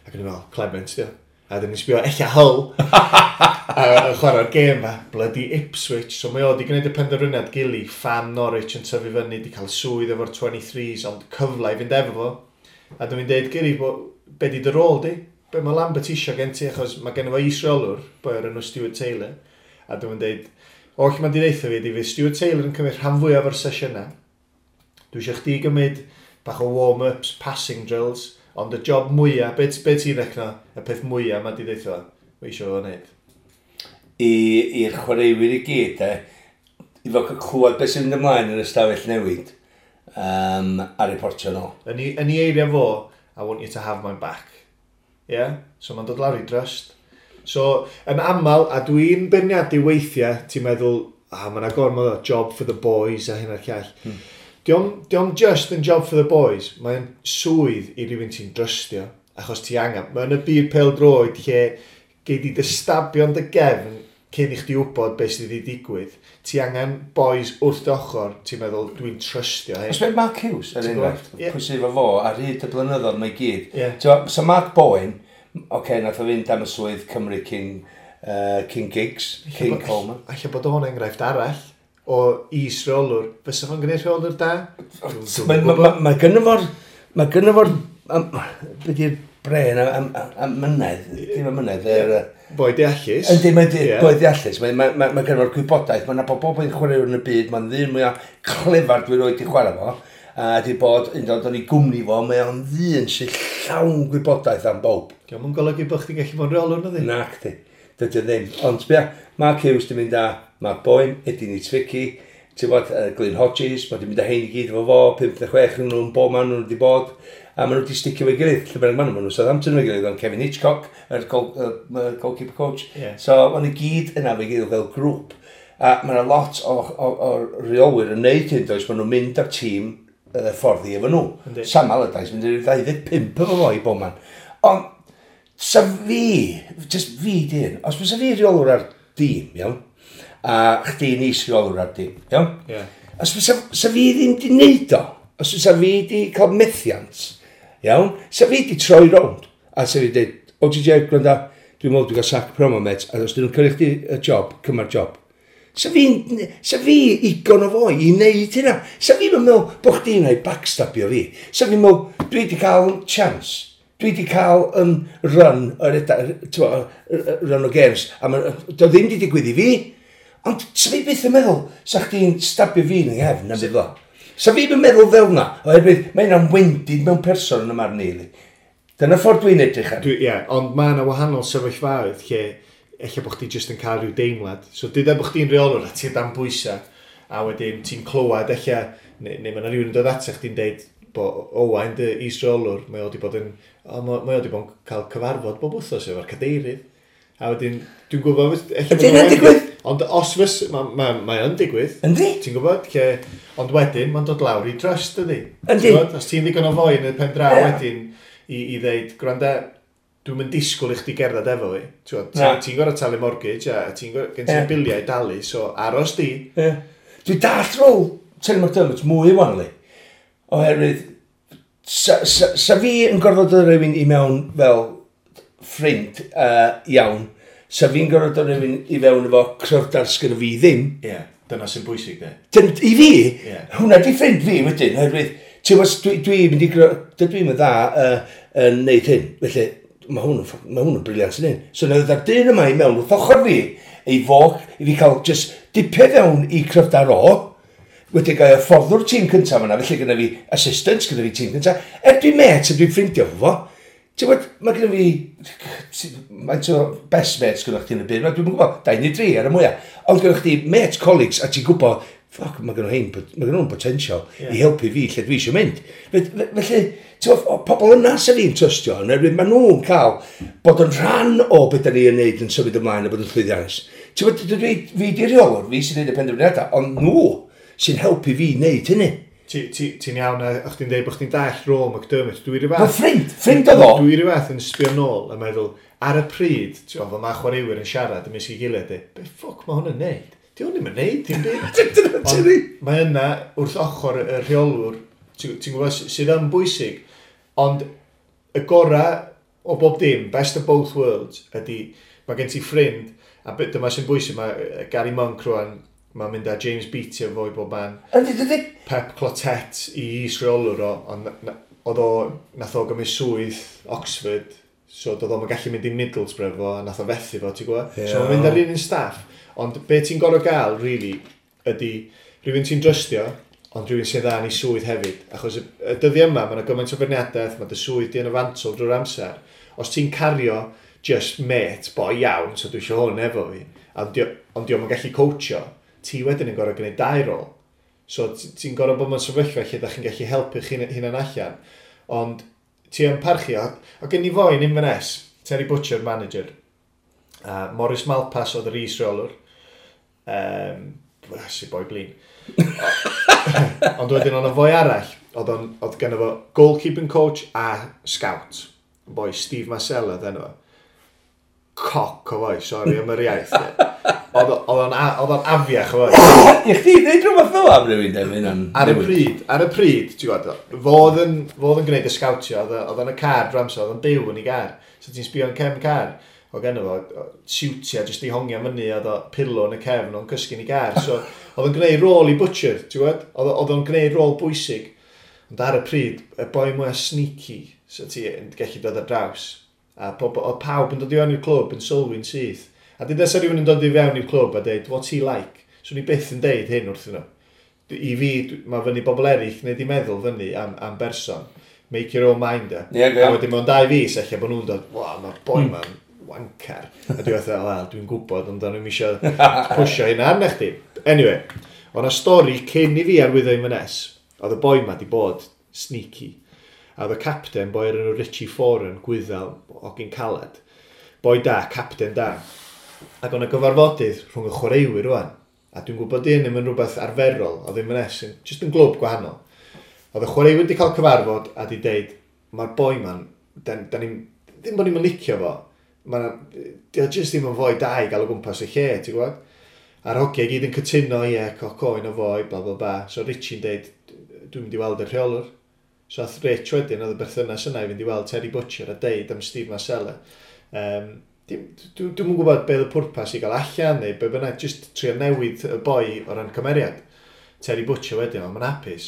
Ac o'n i'n meddwl, Clement, dio. A dyn ni'n sbio, ella Hull, a chwarae'r gêm fa, bloody Ipswich. So mae o wedi gwneud y penderfyniad gili, fan Norwich yn tyfu fyny, wedi cael swydd efo'r 23s, ond cyfle i fynd efo fo. A dwi'n deud, Giri, be di dy rôl di? Be mae Lambert isio gen ti, achos mae gen fo is-reolwr, boi o'r enw Stuart Taylor. A dwi'n deud, oll mae'n di ddeutha fi, di fydd Stuart Taylor yn cymryd rhan fwyaf o'r sesiynau. Dwi eisiau chdi gymryd bach o warm-ups, passing drills, ond y job mwyaf, be, be ti'n recno, y peth mwyaf mae di ddeutha, mae eisiau fo wneud? I'r chwaraewyr i gyd, e, i fod clywed beth sy'n mynd ymlaen yn y stafell newid, a reportio nôl. Yn ei eiriau fo, "I want you to have my back." Yeah? So mae'n dod lawr i trust. So, yn aml, a dwi'n beirniadu weithiau, ti'n meddwl, ah, mae'n gormod o job for the boys a hyn a'r llall. Dio'm just yn job for the boys, mae'n swydd i rywun ti'n drystio, achos ti angen. Mae'n y byd pêl-droed lle gei di dy stabio'n dy gefn cyn i chdi wybod beth sydd wedi digwydd. Ti angen boys wrth dy ochr, ti'n meddwl, dwi'n trystio hyn. Os mae Mark Hughes, er enghraifft, pwy sydd efo fo, ar hyd y blynyddoedd mae gyd. Yeah. So Mark Bowen, oce, okay, nath o fynd am y swydd Cymru cyn Giggs, cyn Coleman. Alla bod o'n enghraifft arall o is-reolwr. Fysa fo'n gwneud rheolwr da? Mae gynno fo'r... Mae gynno fo'r... Be di'r bren am mynedd? Dim am mynedd. Boi deallus. Yndi, mae'n boi deallus. Mae gynno fo'r gwybodaeth. Mae'n nabod bob un chwaraewr yn y byd. Mae'n ddyn mwyaf clefar dwi roed i chwarae fo. A di bod yn dod o'n i gwmni fo, mae o'n ddyn sy'n llawn gwybodaeth am bob. Dio'm yn golygu bod chdi'n gallu bod yn rheolwr, na ddi? Nac di. Dydy o ddim. Ond sbia, Mark Hughes di mynd â Mark Bowen, Eddie Niedzwiecki, ti'n bod, Glyn Hodges, mae di mynd â hein i gyd efo fo, 5 neu 6 nhw'n bob man nhw wedi bod, a maen nhw wedi sticio efo'i gilydd, lle bynnag maen nhw, maen nhw Southampton efo'i gilydd, ond Kevin Hitchcock, yr goalkeeper coach. So, maen nhw gyd yna efo'i gilydd fel grŵp. A mae yna lot o reolwyr yn neud hyn, does, maen nhw'n mynd â'r tîm ffordd i efo nhw. Sam Allardyce mynd i'r 25 efo fo i bob man. Ond, sa fi, just fi dyn, os fysa fi reolwr ar dîm, iawn, a chdi'n is-reolwr ar dîm, iawn? Os fysa sa fi ddim di neud o, os fysa fi di cael methiant, iawn, sa fi di troi rownd, a sa fi di dweud, o GJ, gwranda, dwi'n meddwl dwi'n cael sac promo, met, a os dyn nhw'n cyrchu chdi y job, cyma'r job. Sa fi igon o foi i wneud hynna. Sa fi'n meddwl bod chdi'n ei backstabio fi. Sa fi'n meddwl, dwi wedi cael chance. Dwi wedi cael yn run, run o games. A ma, do ddim wedi digwydd i fi. Ond sa fi byth yn meddwl, sa chdi'n stabio fi yn yng nghefn am byd o. Sa fi'n meddwl fel na, oherwydd mae hynna'n wendid mewn person yn y marn i. Dyna ffordd dwi'n edrych ar. Ie, yeah, ond mae yna wahanol sefyllfaoedd lle ella bod chdi jyst yn cael rhyw deimlad. So dyda bod chdi'n reolwr a ti'n dan bwysau, a wedyn ti'n clywed ella, neu mae yna rhywun yn dod ato chdi'n deud bod Owain dy is-reolwr, mae o wedi bod yn, o, mae o wedi bod yn cael cyfarfod bob wythnos efo'r cadeirydd. A wedyn, dwi'n gwybod... Ydy hynna'n digwydd? Ond os fys, mae o'n digwydd. Yndi? Ti'n gwybod? Lle, ond wedyn, mae'n dod lawr i trust, ydy. Yndi. Os ti'n ddigon o foi yn y pen draw wedyn i ddeud, gwranda, dwi'n mynd disgwyl i chdi gerdded efo fi. Ti'n ti gorfod talu mortgage a ti'n gorfod, gen ti'n biliau i dalu, so aros di. Yeah. Dwi'n dallt rôl Terry McDermott mwy wan, li. Oherwydd, sa fi yn gorfod dod rhywun i mewn fel ffrind iawn, sa fi'n gorfod dod rhywun i fewn efo cryfdar sgynno fi ddim. Ie, yeah, dyna sy'n bwysig, de. I fi, hwnna di ffrind fi wedyn, oherwydd, ti'n gwybod, dwi'n mynd i, dydw i'n dda yn neud hyn, felly mae hwn yn brilliant yn hyn. So na ddod dyn yma i mewn wrth ochr fi, ei fog, i fi cael just dipio fewn i cryfdar o, wedi gael hyfforddwr tîm cyntaf yna, felly gyda fi assistants, gyda fi tîm cyntaf. Er dwi'n met a dwi'n ffrindio fo, ti'n gwybod, mae gyda fi, faint o best mates gyda chdi yn y byd, dwi'n gwybod, 2 neu 3 ar y mwyaf. Ond gyda chdi mates, colleagues, a ti'n gwybod, fuck, mae gyda nhw'n mae gyda nhw'n potential i helpu fi lle dwi eisiau mynd. Felly, ti'n gwybod, pobl yna sy'n fi'n trystio, yn oherwydd maen nhw'n cael bod yn rhan o beth da ni yn neud yn symud ymlaen a bod yn llwyddiannus. Ti'n gwybod, dwi, fi di reolwr, fi sy'n neud y penderfyniadau, ond nhw sy'n helpu fi wneud hynny. Ti'n iawn, a chdi'n dweud bod chdi'n dall rôl McDermott. Dwi rhyw fath... Ffrind oedd o. Dwi rhyw fath yn sbio nôl a meddwl, ar y pryd, ti'n gwybod, mae chwaraewyr yn siarad ymysg ei gilydd, be ffwc mae hwn yn neud? Di hwn ddim yn neud, dim byd. Ond mae yna, wrth ochr y rheolwr, ti'n gwybod, sydd yn bwysig, ond y gorau o bob dim, best of both worlds, ydy, mae gen ti ffrind, a dyma sy'n bwysig, mae Gary Monk rwan, mae'n mynd â James Beattie efo i bob man. Ydy, ydy. Pep Clotet i is-reolwr o, ond oedd o, nath o gymryd swydd Oxford, so doedd o'm yn gallu mynd i Middlesbrough fo, a nath o fethu fo, ti'n gwybod? Yeah. So mae'n mynd ar un un staff, ond be ti'n gorfod gael, really, ydy rhywun ti'n drystio, ond rhywun sy'n dda yn ei swydd hefyd. Achos y dyddiau yma, mae yna gymaint o feirniadaeth, mae dy swydd di yn y fantol drwy'r amser. Os ti'n cario just mate, boi iawn, so dwi eisiau hwn efo fi, ond dio'm yn gallu coachio, ti wedyn yn gorfod gwneud dau rôl. So ti'n gorfod bod mewn sefyllfa lle da chi'n gallu helpu chi'n hunan allan. Ond ti yn parchu, a gen i foi yn Inverness, Terry Butcher, manager, Morris Malpas oedd yr is-reolwr, si boi blin. Ond wedyn oedd foi arall, oedd gen fo goalkeeping coach a scout. Boi Steve Marcella oedd enw fo. Coc o foi, sori am yr iaith. Oedd o'n afiach o foi. I chdi ddeud rhywbeth fel am rhywun, de, Ar y pryd, ti'n gwybod, fo oedd yn gwneud y scoutio, oedd yn y car drwy amser, oedd yn byw yn ei gar. So ti'n sbio yn cefn car. Oedd genno fo siwtia jyst i hongian fyny, oedd o pillow yn y cefn, o'n cysgu'n ei gar. So oedd o'n gwneud rôl i Butcher, ti'n gwybod? Oedd o'n gwneud rôl bwysig. Ond ar y pryd, y boi mwyaf sneaky, so ti'n gallu dod ar draws. A oedd pawb yn dod i fewn i'r clwb yn sylwi'n syth. A dyd esa rhywun yn dod i fewn i'r clwb a deud, what's he like? So ni byth yn deud hyn wrthyn nhw. I fi, mae fyny bobl eraill wneud i meddwl fyny am berson. Make your own mind up. Yeah, yeah. A wedyn mewn 2 fis, ella bod nhw'n dod, wow, mae'r boi ma'n wanker. A dwi'n fatha, wel, dwi'n gwybod, ond o'n i'm eisiau pwysio hynna arna chdi. Anyway, o'na stori cyn i fi arwyddo Inverness, oedd y boi ma di bod sneaky. A oedd y captain, boi o'r enw Richie Foran, Gwyddel, hogyn caled. Boi da, captain da. Ac o'na gyfarfodydd rhwng y chwaraewyr rwan. A dwi'n gwybod dyn ddim yn rhywbeth arferol, oedd Inverness yn just yn glwb gwahanol. Oedd y chwaraewyr wedi cael cyfarfod a di deud, mae'r boi ma'n, da ni'n, ddim bod ni'n licio fo, dio just ddim yn foi da i gael o gwmpas y lle, ti'n gwybod? A'r hogiau gyd yn cytuno, ie, coc oen o foi, bla bla bla. So Richie'n deud, dwi'n mynd i weld y rheolwr. So ath Rich wedyn, oedd y berthynas yna i fynd i weld Terry Butcher a deud am Steve Marcella. Dwi'm yn gwybod be oedd y pwrpas i gael allan neu be bynnag, just trio newid y boi o ran cymeriad. Terry Butcher wedyn, ond mae'n hapus.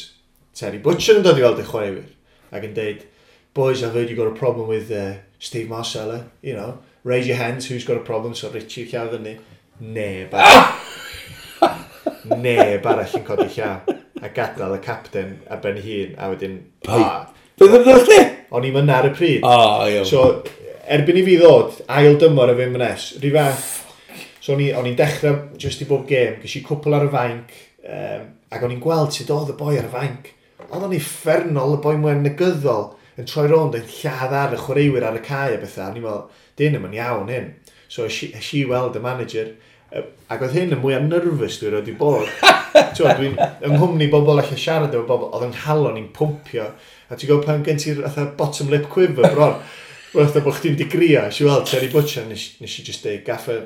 Terry Butcher yn dod i weld y chwaraewyr ac yn deud, boys, I've heard you got a problem with Steve Marcella, you know, raise your hands, who's got a problem? So Richie llaw fyny. Neb arall. Neb arall yn codi llaw. A gadael y captain ar ben ei hun, a wedyn... Beth oedd chdi? O'n i'm yna ar y pryd. Oh, iawn. So, erbyn i fi ddod, ail dymor efo Inverness, rhy fath. So, o'n i'n dechrau just i bob gêm, ges i cwpl ar y fainc, ac o'n i'n gweld sut oedd y boi ar y fainc. Oedd o'n uffernol, y boi mwy negyddol, yn troi rownd yn lladd ar y chwaraewyr ar y cae a bethau. O'n i'n meddwl, dyn ddim yn iawn hyn. So, es i weld y manager, ac oedd hyn yn mwyaf nervous dwi erioed 'di bod. Dwi'n yng nghwmni bobl allan siarad efo bobl, oedd yng nghalon i'n pwmpio. A ti'n gwybod pan gen ti'r fatha bottom lip quiver bron, fatha bod chdi'n digrio. Es i weld Terry Butcher, nes i just deud, Gaffer,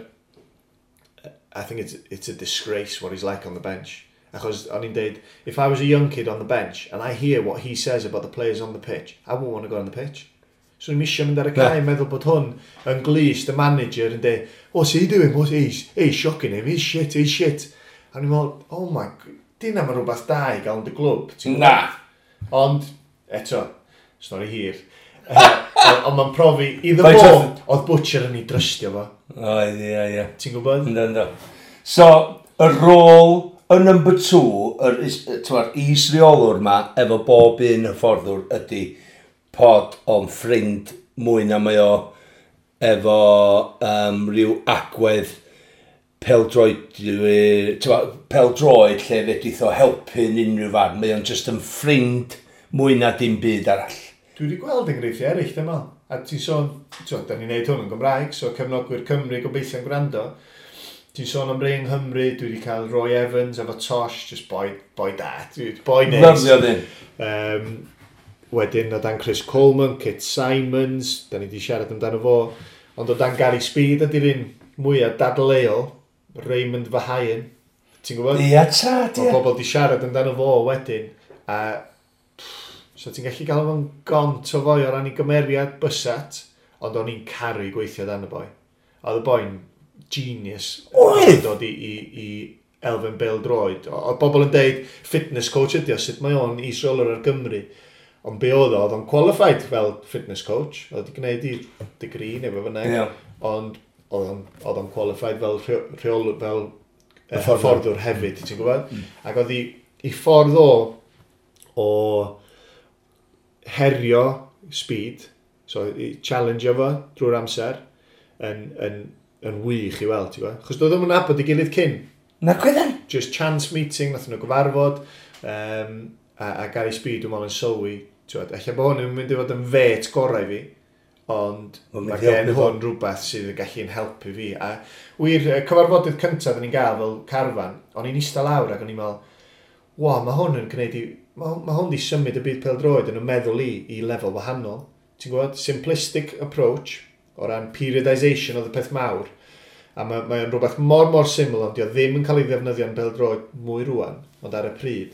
I think it's a disgrace what he's like on the bench. Achos o'n i'n deud, if I was a young kid on the bench and I hear what he says about the players on the pitch, I won't want to go on the pitch. So ni'n misio mynd ar y cae, meddwl bod hwn yn glust, y manager yn deud, what's he doing? What's he? He's shocking him, he's shit, he's shit. A ni'n meddwl, oh my, dyna mae rhywbeth da i gael yn dy glwb. Na. Ond, eto, stori hir. Ond mae'n profi, iddo fo, oedd Butcher yn ei drystio fo. Oedd, ie, ie. Ti'n gwybod? Ynddo, ynddo. So, y rôl, y number 2, yr is-reolwr ma, efo bob un hyfforddwr ydy pod o'n ffrind mwy na mae o efo rhyw agwedd pêl-droed lle fedrith o helpu yn unrhyw farn. Mae o'n just yn ffrind mwy na dim byd arall. Dwi wedi gweld enghreifftiau eraill, dwi'n meddwl. A ti'n sôn, da ni'n neud hwn yn Gymraeg, so cefnogwyr Cymru gobeithio'n gwrando. Ti'n sôn am rei yng Nghymru, dwi wedi cael Roy Evans efo Tosh, just boi da, boi neis. Lyfio ddyn. Wedyn o dan Chris Coleman, Kit Simons, da ni wedi siarad amdano fo, ond o dan Gary Speed ydy'r un mwyaf dadleuol, Raymond Verheyen, ti'n gwybod? Ia, tad, ia. Mae pobl wedi siarad amdano fo wedyn, a so ti'n gallu gael fo'n gont o foi o ran ei gymeriad bysat, Ond o'n i'n caru gweithio dan y boi. Oedd y boi'n genius. Oedd? Dod i elfen bêl-droed. Oedd bobl yn deud, fitness coach ydi o, sut mae o'n is-reolwr ar Gymru. Ond be oedd o, oedd o'n qualified fel fitness coach. Oedd wedi gwneud i degree neu be bynnag. Yeah. Ond oedd o'n qualified fel rheolwr, fel hyfforddwr hefyd, ti'n gwybod? Ac oedd i ffordd o herio Speed, so i challenge fo drwy'r amser, yn wych i weld, ti'n gwybod? Chos doedd nhw'n nabod ei gilydd cyn. Na gwydden? Just chance meeting, nath nhw gyfarfod, a Gary Speed dwi'n meddwl yn sylwi, ti'n gwybod, ella bod hwn yn mynd i fod yn fet gorau fi, ond mae gen hwn rhywbeth sydd yn gallu'n helpu fi. A wir, y cyfarfodydd cyntaf o'n i'n gael fel carfan, o'n i'n eistedd lawr ac o'n i'n meddwl, wa, mae hwn yn gwneud i, mae hwn di symud y byd pêl-droed yn y meddwl i lefel wahanol. Ti'n gwybod, simplistic approach o ran periodisation oedd y peth mawr. A mae o'n rhywbeth mor mor syml, ond dio ddim yn cael ei ddefnyddio yn pêl-droed mwy rwan, ond ar y pryd.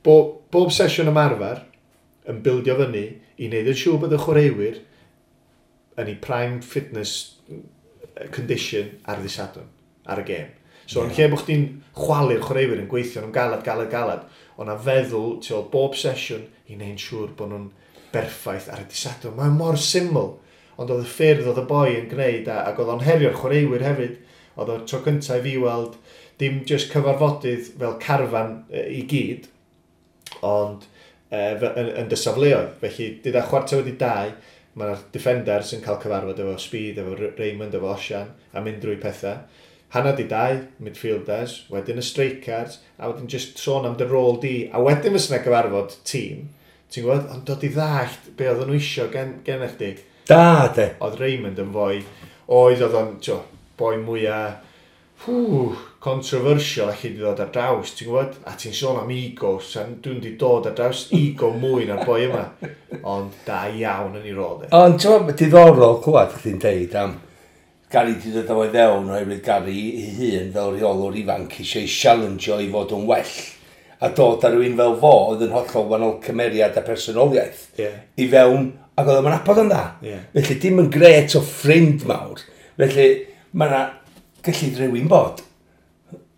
Bob sesiwn ymarfer yn bildio fyny i wneud yn siŵr bod y chwaraewyr yn ei prime fitness condition ar ddydd Sadwrn, ar y gêm. So, yn lle bod chdi'n chwalu'r chwaraewyr yn gweithio nhw'n galad, galad, galad, o'na feddwl tu ôl bob sesiwn i wneud yn siŵr bod nhw'n berffaith ar y dydd Sadwrn. Mae'n mor syml, ond oedd y ffyrdd oedd y boi yn gwneud, ac oedd o'n herio'r chwaraewyr hefyd. Oedd o'r tro cyntaf i fi weld dim just cyfarfodydd fel carfan i gyd, ond yn dy safleoedd. Felly, dyda 1:45, mae'r defenders yn cael cyfarfod efo Speed, efo Raymond, efo Osian, a mynd drwy pethau. 1:30, midfielders, wedyn y strikers, a wedyn just sôn am dy rôl di, a wedyn fysa 'na gyfarfod tîm, ti'n gwybod, ond dod i ddallt be oedden nhw isio gen chdi. Da, de. Oedd Raymond yn fwy, oedd o'n, tio, boi mwyaf, controversial allu di ddod ar draws, ti'n gwybod? A ti'n sôn am ego, dwi'n di dod ar draws ego mwy na'r boi yma. Ond da iawn yn ei rôl, de. Ond ti'n gwybod, diddorol clywed chdi'n deud am Gary di dod o fewn oherwydd Gary ei hun fel rheolwr ifanc eisiau challenge-o i fod yn well. A dod ar rhywun fel fo oedd yn hollol wahanol cymeriad a personoliaeth i fewn, ac oedd o'n nabod yn dda. Felly dim yn gret o ffrind mawr. Felly mae yna gallu rhywun bod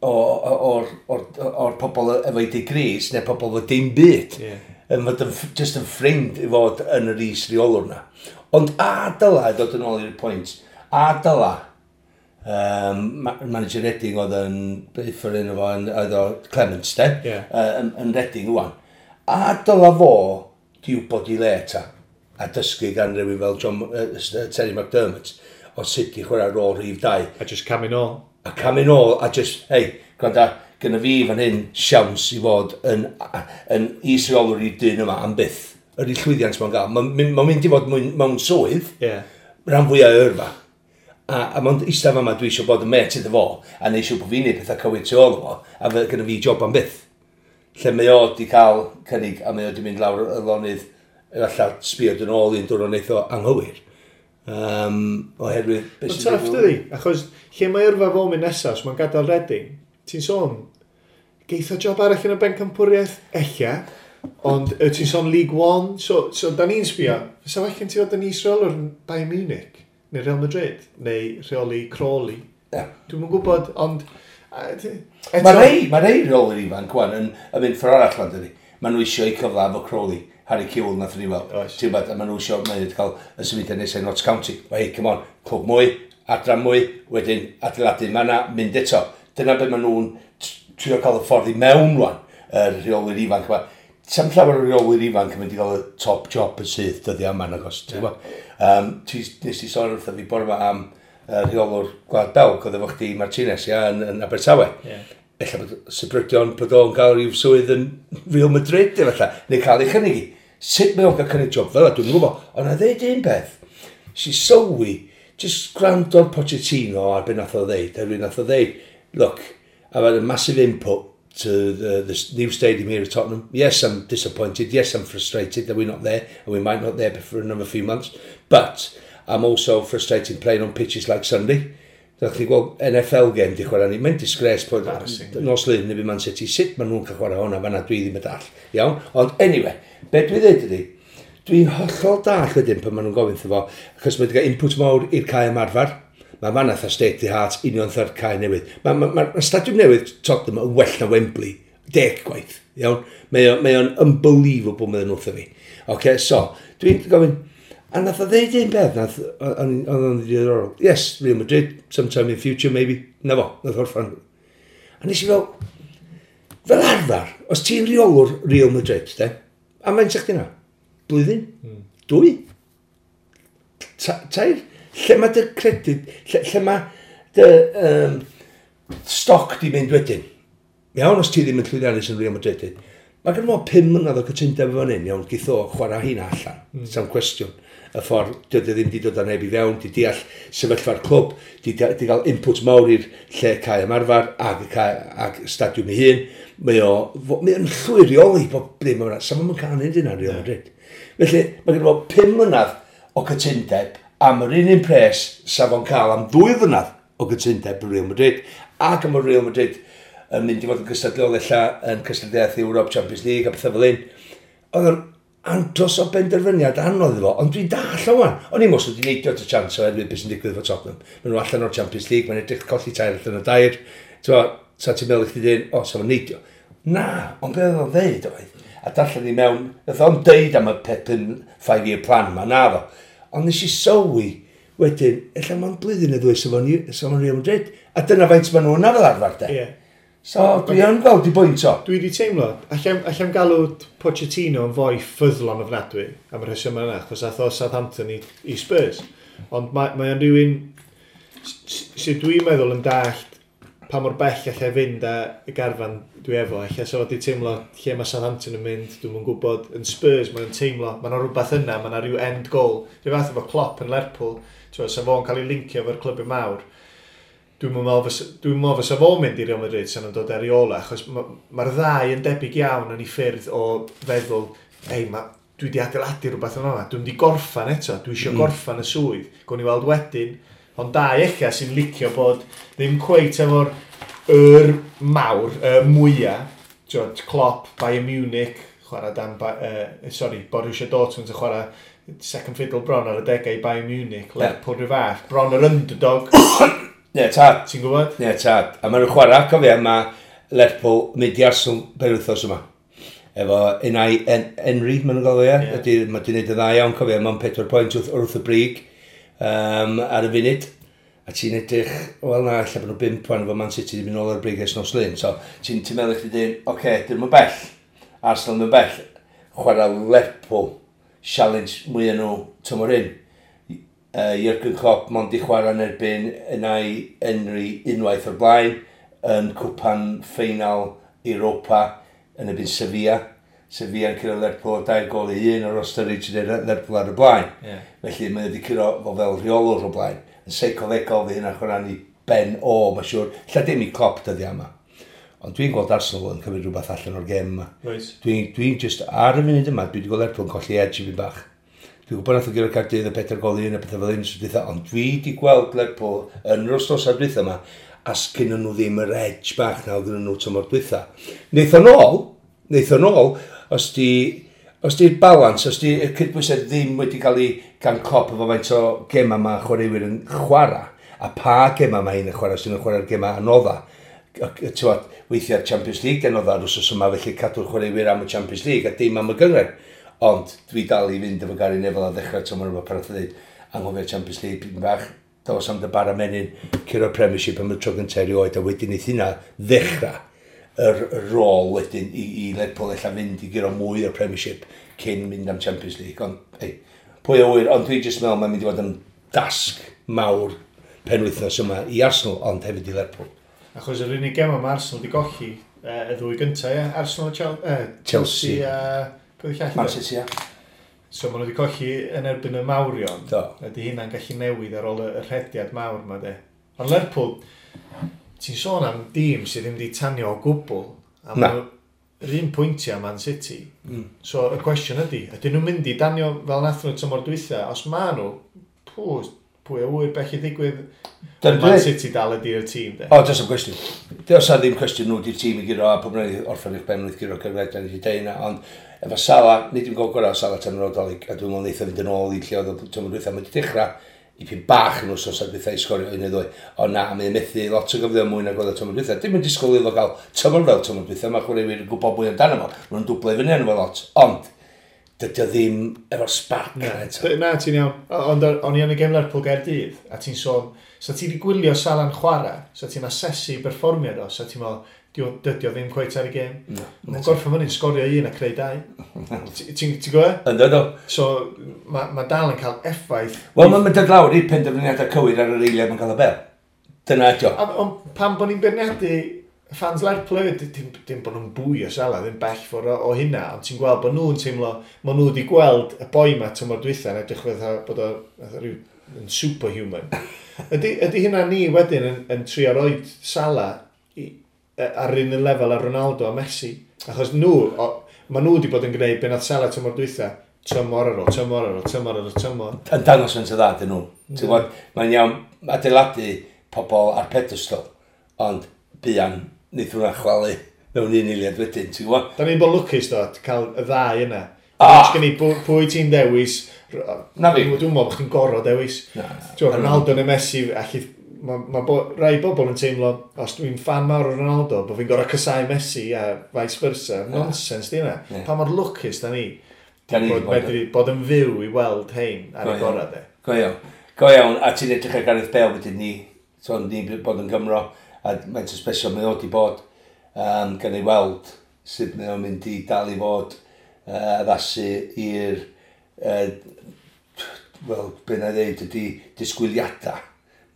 o'r pobl efo'i degrees neu pobl efo dim byd. Yn fod yn, just yn ffrind i fod yn yr is-reolwr na. Ond a dyla, dod yn ôl i'r pwynt, a dyla, manager Reading oedd yn, beth o'r enw fo, oedd o Clements, de, yn Reading ŵan. A dyla fo di wybod i le ta, a dysgu gan rhywun fel John, Terry McDermott, o sut i chwarae rôl rhif 2. A just camu nôl. A camu nôl, a just, hei, gwranda, gynna fi fan hyn siawns i fod yn is-reolwr i'r dyn yma am byth. Yr i llwyddiant mae'n gael. Mae'n mynd i fod mewn swydd, rhan fwyaf o yrfa. A mae'n eistedd yma dwi eisiau bod yn met iddo fo, a neud siŵr bod fi'n neud pethau cywir tu ôl fo, a fe gynna fi job am byth. Lle mae o di cael cynnig, a mae o di mynd lawr y lonydd, efallai sbio yn ôl un diwrnod wneith o anghywir. Oherwydd... Mae'n tough, dydi? Achos lle mae yrfa fo mynd nesaf, os mae'n gadael Reading, ti'n sôn, geith o job arall yn y bencampwriaeth? Ella. Ond ti'n sôn League One, so da ni'n sbio, fysa well gen ti fod yn is-reolwr yn Bayern Munich, neu Real Madrid, neu rheoli Crawley. Dwi'm yn gwybod, ond... Mae rei reolwyr ifanc wan yn mynd ffordd arall fan, dydi. Maen nhw eisiau eu cyfle efo Crawley, Harry Kewell nath ni weld. Ti'n gwybod, a maen nhw eisiau, maen nhw cael y symudiad nesaf i Notts County. Hei, come on, clwb mwy, adran mwy, wedyn adeiladu, mae yna mynd eto. Dyna beth maen nhw'n trio cael y ffordd i mewn rwan, y rheolwyr ifanc yma. Sam llawer o reolwyr ifanc yn mynd i gael y top job yn syth dyddiau yma, nagos, ti'n gwybod? Nes ti sôn wrtho fi bore yma am rheolwr Gwlad Belg, oedd efo chdi Martinez, ia, yn Abertawe. Ella bod sybrydion bod o'n gael rhyw swydd yn Real Madrid, efallai, neu cael ei chynnig i. Sut mae o'n cael cynnig job fel yna, dwi'n gwybod. Ond na ddeud un peth, si sylwi, just gwrando'r Pochettino ar be nath o ddeud, a nath o ddeud, look, I've had a massive input to the new stadium here at Tottenham. Yes, I'm disappointed. Yes, I'm frustrated that we're not there, and we might not there for another few months. But I'm also frustrated playing on pitches like Sunday. Dach chi gweld NFL game di chwarae ni. Mae'n disgrace bod nos Lun neu Man City. Sut maen nhw'n cael chwarae hwnna fanna, dwi ddim yn dall. Iawn? Ond anyway, be dwi dweud ydi, Dwi'n hollol dall wedyn pan maen nhw'n gofyn fo, achos mae wedi cael input mawr i'r cae ymarfer. Mae fan atha state the heart union tha'r cae newydd. Mae ma, ma, ma stadiwm newydd Tottenham yn well na Wembley. 10 gwaith. Iawn? Mae o'n unbelievable meddyn nhw wrtho fi. Okay, so, dwi'n gofyn, a nath o ddeud un peth, nath, o'n o'n ddiddorol. Yes, Real Madrid, sometime in future maybe. Na fo, nath orffan. A nes i fel arfer, os ti'n reolwr Real Madrid, de, a mae'n sa'ch na? Blwyddyn? Dwy? Tair? Lle mae dy credyd, lle mae dy stoc di mynd wedyn? Iawn, os ti ddim yn llwyddiannus yn Real Madrid, mae gen fo 5 mlynedd o cytundeb efo hyn, iawn, geith o chwarae hynna allan, Sam cwestiwn. Y ffordd, dydy ddim di dod â neb i fewn, di deall sefyllfa'r clwb, di gael input mawr i'r lle cae ymarfer ag, cae, ag stadiwm ei hun. Mae o'n llwyr reoli bob dim yma. Sa fo'n cael neud hynna Real Madrid. Felly, mae gen fo 5 mlynedd o cytundeb am yr un pres sa fo'n cael am 2 flynedd o gytundeb yn Real Madrid, ac am y Real Madrid yn mynd i fod yn gystadleuol ella yn cystadleuaeth Europe Champions League a pethau fel un. Oedd o'n andros o benderfyniad anodd iddo fo, ond dwi'n dall o wan. O'n i'n mwys wedi neidio at y chance oherwydd beth sy'n digwydd efo Tottenham. Maen nhw allan o'r Champions League, mae'n edrych colli 3 allan o 2. T'mo, sa ti'n meddwl i chdi dweud, o, sa fo'n neidio. Na, ond beth oedd o'n ddeud oedd, a darllen i mewn, nath o'n deud am y peth 5-year plan ma, na ddo. Ond nes i sylwi wedyn, ella mewn blwyddyn neu ddwy sa fo'n Real Madrid. A dyna faint maen nhw yna fel arfer, de. Yeah. So, dwi yn gweld i bwynt o. Dwi wedi teimlo, allai'm galw Pochettino yn fwy ffyddlon ofnadwy am y rheswm yna, achos ath o Southampton i Spurs. Ond mae o'n rhywun sydd dwi'n meddwl yn dallt pa mor bell allai fynd â y garfan dwi efo. Alla sa fo wedi teimlo lle mae Southampton yn mynd, dwi'm yn gwybod. Yn Spurs mae'n teimlo, mae yna rhywbeth yna, mae yna rhyw end goal. Rhyw fath efo Klopp yn Lerpwl, sa fo'n cael ei lincio efo'r clybiau mawr. Dwi'n meddwl fysa fo'n mynd i Real Madrid sa'n nhw'n dod ar ei ola, achos mae'r ddau yn debyg iawn yn ei ffyrdd o feddwl, ei, dwi wedi adeiladu rhywbeth yma, dwi'n wedi gorffan eto, dwi eisiau gorffan y swydd. Gwn i weld wedyn, ond dau ella sy'n licio bod ddim cweit efo'r yr mawr, y mwyaf, Klopp, Bayern Munich, chwarae dan, Borussia Dortmund yn chwarae second fiddle bron ar y degau i Bayern Munich, Lerpwl rhyw fath, bron yr underdog. Ne, tad. Ti'n gwybod? Ne, tad. A maen nhw'n chwarae, cofio, mae Lerpwl mynd i Arsenal penwythnos yma. Efo Unai Henry, maen nhw'n galw, ie. Yeah. Mae di wneud yn dda iawn, cofio, mae'n 4 pwynt wrth y brig ar y funud. A ti'n edrych, wel na, ella bod nhw 5 wan efo Man City wedi mynd nôl ar y brig ers nos Lun. So, ti'n meddwl chdi dyn, oce, dyn nhw'n bell. Arsenal yn bell. Chwarae Lerpwl, challenge mwy nhw tymor hyn. Jurgen Klopp mond i chwarae yn erbyn Unai Henry unwaith o'r blaen yn cwpan ffeinal Europa yn erbyn Sevilla. Sevilla yn curo Lerpwl 2 gôl i 1 o'r Sturridge yn Lerpwl ar y blaen. Yeah. Felly mae wedi curo fo fel rheolwr o blaen. Yn seicolegol fi hynna'n chwarae ni ben o, mae'n siŵr. Lla dim i Klopp dyddiau yma. Ond dwi'n gweld Arsenal yn cymryd rhywbeth allan o'r gêm yma. Right. Dwi'n just ar y funud yma, dwi wedi gweld Lerpwl yn colli edge i fi bach. Dwi'n gwybod nath o guro Caerdydd y 4 gôl i 1 a pethau fel un dwytha, ond dwi wedi gweld Lerpwl yn yr wythnosau dwytha yma, a sgynnon nhw ddim yr edge bach na oedd gynnon nhw tymor dwytha. Neith o nôl, os di'r balans, os di'r cydbwysedd ddim wedi cael ei gan Klopp efo faint o gema mae chwaraewyr yn chwarae, a pa gema mae hyn yn chwarae, sy'n chwarae'r gema anodda. Tywod, weithiau'r Champions League anodda ar wythnos yma, felly cadw'r chwaraewyr am y Champions League a dim am y gynghrair. Ond dwi dal i fynd efo Gary Neville a ddechrau tymor yma pan nath o ddeud, anghofio Champions League pyn bach, dos am dy bara menyn, curo'r Premiership am y tro gyntaf erioed, a wedyn neith hynna ddechrau yr rôl wedyn i Lerpwl ella fynd i guro mwy o'r Premiership cyn mynd am Champions League. Ond, ei, pwy a ŵyr, ond dwi jyst meddwl mae'n mynd i fod yn dasg mawr penwythnos yma i Arsenal, ond hefyd i Lerpwl. Achos yr unig gem mae Arsenal wedi golli y ddwy gyntaf, ie? Arsenal, Chelsea a... Man City, ie. So maen nhw wedi colli yn erbyn y mawrion. Do. Ydy hynna'n gallu newid ar ôl y rhediad mawr yma, de. Ond Lerpwl, ti'n sôn am dîm sydd ddim wedi tanio o gwbl. A Na. Yr un pwyntiau Man City. So y cwestiwn ydy, ydyn nhw'n mynd i danio fel nath nhw tymor dwytha? Os ma nhw, pw, Pwy a wyr bell i ddigwydd. Man City dal ydy'r tîm, de. O, does am cwestiwn. Does am ddim cwestiwn nhw di'r tîm i guro, a pob rhaid orffen eich ben wrth guro cyfred, da ni wedi deud yna, ond efo Salah, nid yw'n gol gorau o Salah tan yr odolig, a dwi'n meddwl neith o fynd yn ôl i lle oedd o tymor dwytha, mae wedi dechrau i pyn bach yn wsos ar dwytha i sgorio un neu ddwy. Ond na, mae'n methu lot o gyfleoedd mwy nag oedd o tymor dwytha. Dim yn disgwyl iddo gael tymor fel tymor dwytha, mae chwaraewyr yn gwybod mwy amdano fo. Maen nhw'n dwblau fyny arno fo lot. Ond, dydy o ddim efo'r spark na eto. Na, ti'n iawn. Ond o'n i yn y gêm Lerpwl Gaerdydd, a ti'n sôn, sa ti wedi gwylio Salah'n chwarae, sa ti'n asesu berfformiad o, sa ti'n meddwl, dydy o ddim cweit ar y gêm. No, mae'n gorffen fyny'n sgorio un a creu dau. Ti'n gwybod? Ynddo, do. So, mae ma dal yn cael effaith. Wel, mae'n dod lawr i'r penderfyniadau cywir ar yr eiliad mae'n cael y bel. Dyna ydi o. Ond pam bod ni'n beirniadu fans Lerpwl hefyd, dim bod nhw'n bwy o Salah, ddim bell ffordd o hynna, ond ti'n gweld bod nhw'n teimlo, maen nhw wedi gweld y boi ma tymor dwytha yn edrych fatha bod o rhyw yn superhuman. Ydy hynna ni wedyn yn trio roed Salah ar un lefel ar Ronaldo a Messi? Achos nhw, maen nhw wedi bod yn gwneud be nath Salah tymor dwytha, tymor ar ôl, tymor ar ôl, tymor ar ôl, tymor. Yn dangos yn dda, dyn nhw. Ti'n gwybod, mae'n iawn adeiladu pobl ar pedestal, ond buan wneith hwnna chwalu mewn un eiliad wedyn, ti'n gwybod? Da ni'n bod lwcus do, cael y ddau yna. Ah! Gen i pwy ti'n dewis. Na fi. Dwi'n meddwl bod chdi'n gorfod dewis. Na. Ti'n Ronaldo neu Messi, allu, mae rai bobl yn teimlo, os dwi'n fan mawr o Ronaldo, bod fi'n gorfod casáu Messi a vice versa. Nonsense di hynna. Pa mor lwcus da ni. Bod medru bod yn fyw i weld hein ar y gorau, de. Go iawn. Go iawn, a ti'n edrych ar Gareth Bale wedyn ni, so ni'n bod yn Gymro, a mae'n special mae o wedi bod, gan ei weld sut mae o'n mynd i dal i fod addasu i'r, wel, be na i ddeud ydy disgwyliadau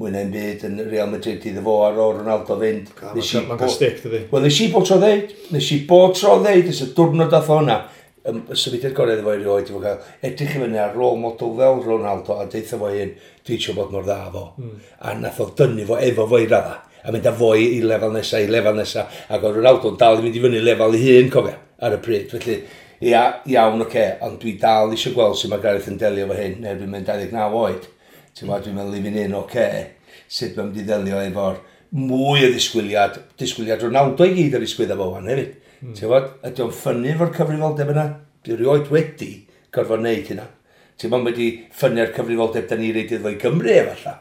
mwy na'n byd yn Real Madrid iddo fo ar ôl Ronaldo fynd. Mae'n cael stick, dydy. Wel, nes i bod tro ddeud, nes y diwrnod dath o hwnna, y symudiad gorau iddo fo erioed, i fo cael edrych i fyny ar rôl model fel Ronaldo a deitha fo hyn, dwi eisiau bod mor dda fo. A nath o dynnu fo efo fo i radda, a mynd â fo i lefel nesa, i lefel nesa, ac oedd Ronaldo'n dal i fynd i fyny lefel ei hun, cofia, ar y pryd. Felly, ia, iawn, oce, ond dwi dal eisiau gweld sut mae Gareth yn delio efo hyn, neu dwi'n mynd 29 oed. Ti'n gwybod, dwi'n meddwl i fi'n un, oce, sut mae'n mynd i ddelio efo'r mwy o disgwyliad Ronaldo i gyd ar ei sgwydda fo wan hefyd. Ti'n gwybod, ydy o'n ffynnu efo'r cyfrifoldeb yna? Dwi erioed wedi gorfod wneud hynna. Ti'n gwybod, wedi ffynnu'r cyfrifoldeb da ni reid iddo fo i Gymru efallai.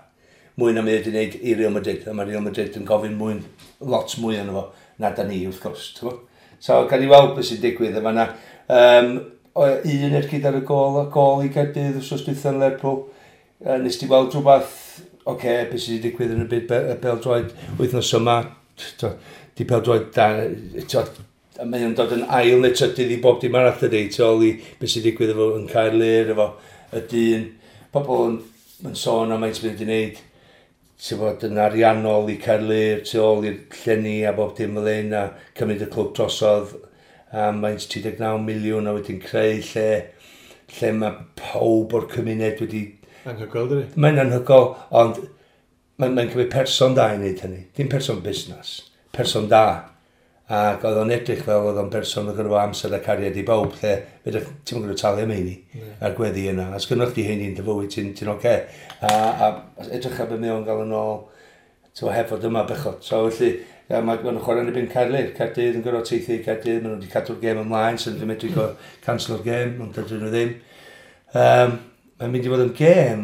Mwy na mae wedi wneud i Real Madrid. A mae Real Madrid yn gofyn mwy, lot mwy yno fo na da ni, wrth gwrs. Ti'n gwybod? So, gawn ni weld beth sy'n digwydd yma na. Un ergyd ar y gol, gol i Gaerdydd wrth dwytha yn Lerpwl. Nes ti weld rhywbeth, oce, beth sydd wedi digwydd yn y byd bêl-droed wythnos yma, di bêl-droed da, mae o'n dod yn ail neu trydydd i bob dim arall dydy, tu ôl i beth sydd wedi digwydd efo yn Caerlŷr, efo y dyn. Pobl yn sôn am faint sydd wedi gwneud, ti'n bod yn ariannol i Caerlŷr, tu ôl i'r llenni a bob dim fel hyn, a cymryd y clwb drosodd am faint 39 miliwn a wedyn creu lle mae pawb o'r cymuned wedi... Anhygoel, dydy? Mae'n anhygoel, ond mae'n cymryd person da i wneud hynny. Dim person busnes, person da. Ac oedd o'n edrych fel oedd o'n person oedd gyda fo amser a cariad i bawb, lle ti'm yn gwybod talu am heini a'r gweddi yna. A sgynnoch chdi heini yn dy fywyd, ti'n oce. A edrych ar be mae o'n gael yn ôl, ti'n heb fod yma bechod. So felly, ia, mae nhw'n chwarae yn erbyn Caerlŷr. Caerdydd yn gorfod teithio i Caerdydd, maen nhw wedi cadw'r gêm ymlaen, so nhw'n medru cancelo'r gêm, ond dydyn nhw ddim. Mae'n mynd i fod yn gêm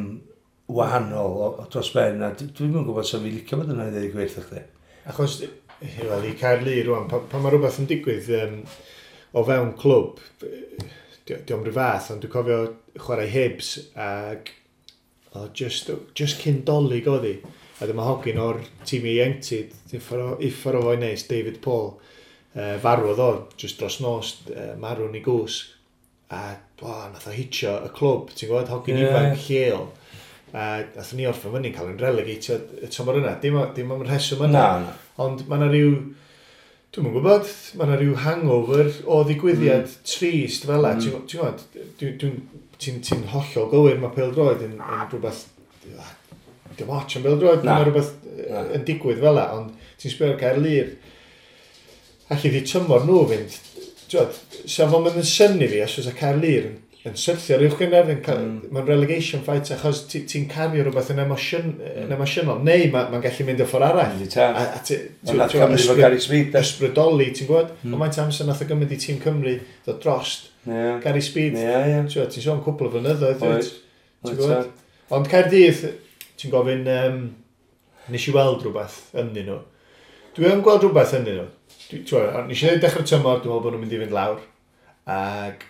wahanol o dros ben, a dwi'm yn gwybod sef fi licio bod yna i ddweud y gwir wrth chdi. Achos, wel, i Caerlŷr rwan, pan mae rhywbeth yn digwydd o fewn clwb, diolch rhyw fath, ond dwi'n cofio chwarae Hibs ac just cyn Dolig oedd hi. A dyma hogyn o'r tîm ieuenctid, uffar o foi neis, David Paul, farwodd o, just dros nos, marw'n ei gwsg. A nath o hitio y clwb, ti'n gwybod, hogyn ifanc lleol. A nath ni orffen fyny'n cael yn relegatio y tymor yna. Dim am rheswm yna. Na. Ond mae yna rhyw, dwi'm yn gwybod, mae yna rhyw hangover o ddigwyddiad trist fel 'na. Ti'n gwybod, ti'n hollol gywir, mae pêl-droed yn rhywbeth, dim ots am bêl-droed, mae rhywbeth yn digwydd fel 'na, ond ti'n sbio ar Caerlŷr, allu di tymor nhw fynd, ti'n gwybod, sa fo'n mynd yn synnu fi, os oes y Caerlŷr yn yn syrthio ar uwch gynghrair, mae'n relegation fight achos ti'n ti cario rhywbeth yn emosiynol, neu mae'n ma gallu mynd y ffordd arall. A Cymru Gary Speed. Ysbrydoli, ti'n gwybod? Ond mae'n amser nath o gymryd i tîm Cymru ddod drost Gary Speed. Ti'n sôn cwpl o flynyddoedd. Ti'n gwybod? Ond Caerdydd, ti'n gofyn, nes i weld rhywbeth ynddyn nhw. Dwi yn gweld rhywbeth ynddyn nhw. Nes i ddweud dechrau tymor, dwi'n meddwl bod nhw'n mynd i fynd lawr. Ac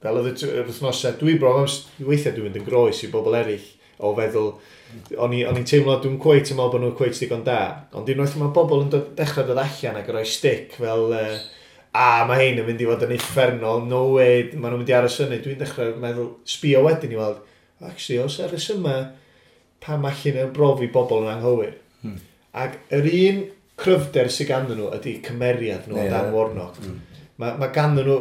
fel oedd yr wythnosau, dwi bron, weithiau dwi'n mynd yn groes i bobl eraill o feddwl, o'n i'n teimlo, dwi'n cweit yn meddwl bod nhw'n cweit digon da, ond unwaith mae bobl yn dechrau dod allan ac yn rhoi stick fel, mae hein yn mynd i fod yn uffernol, no way, maen nhw'n mynd i aros fyny, dwi'n dechrau meddwl, sbio wedyn i weld, actually, os ar yma, pam allan yn brofi bobl yn anghywir. Ac yr un cryfder sydd ganddyn nhw ydy cymeriad nhw o Dan Warnock. Mae ganddyn nhw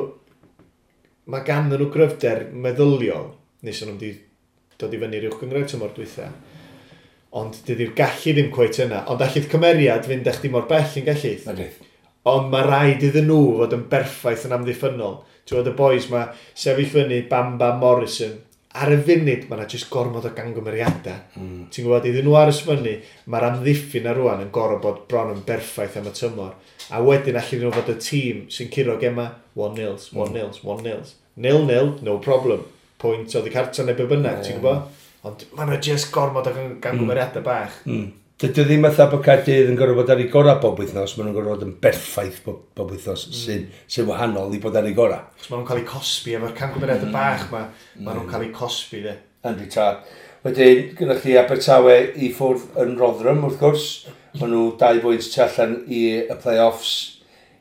mae ganddyn nhw gryfder meddyliol, nes nhw'n wedi dod i fyny'r uwch gynghrair tymor dwytha. Ond dydy'r gallu ddim cweit yna. Ond allith cymeriad fynd â chdi mor bell yn gallu. Ond mae rhaid iddyn nhw fod yn berffaith yn amddiffynnol. Ti'n gwybod y boys ma sefyll fyny Bamba Morrison. Ar y funud mae yna jyst gormod o gangymeriadau. Ti'n gwybod, iddyn nhw aros fyny, mae'r amddiffyn ar rwan yn gorfod bod bron yn berffaith am y tymor. A wedyn allan nhw fod y tîm sy'n curo gema 1-0, 1-0, 1-0. 0-0, no problem. Pwynt oddi cartra neu be bynnag, ti'n gwybod? Ond mae yna jyst gormod o gangymeriadau bach. Dydy o ddim fatha bod Caerdydd yn gorfod bod ar ei gorau bob wythnos, maen nhw'n gorfod bod yn berffaith bob wythnos, sy'n wahanol i bod ar ei gorau. Chos maen nhw'n cael eu cosbi efo'r camgymeriadau bach, maen nhw'n cael eu cosbi, de. Yndi tad. Wedyn, gyda chi Abertawe i ffwrdd yn Rotherham, wrth gwrs. Maen nhw 2 bwynt tu allan i y play-offs.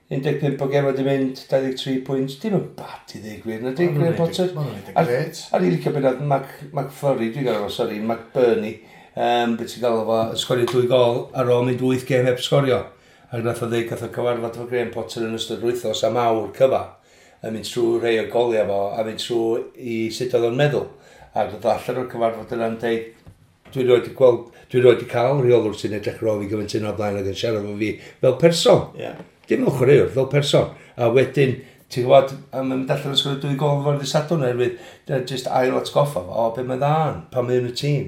15 o gemau wedi mynd, 23 pwynt. Dim yn bad i ddweud gwir, na di, Graham Potter. Maen nhw'n neud yn grêt. A ni licio beth McFlurry, dwi'n gael o, sori, McBurney. Beth ti'n gael o, sgorio 2 gol ar ôl mynd 8 gêm heb sgorio. Ac nath o ddeud, gath o cyfarfod efo Graham Potter yn ystod wythnos am awr cyfa. Yn mynd trwy rhai o goliau fo, a mynd trwy i sut oedd o'n meddwl. Ac oedd allan o'r cyfarfod yna'n deud, dwi roed i gweld, dwi roed i cael rheolwr sy'n edrych ar ôl fi gymaint yna o blaen ac yn siarad efo fi fel person. Dim fel chwaraewr, fel person. A wedyn, ti'n gwybod, a mae'n mynd allan yn sgorio 2 gol efo'r dydd Sadwrn oherwydd, jyst ail atgoffa fo, o, be mae dda, pan mae yn y tîm.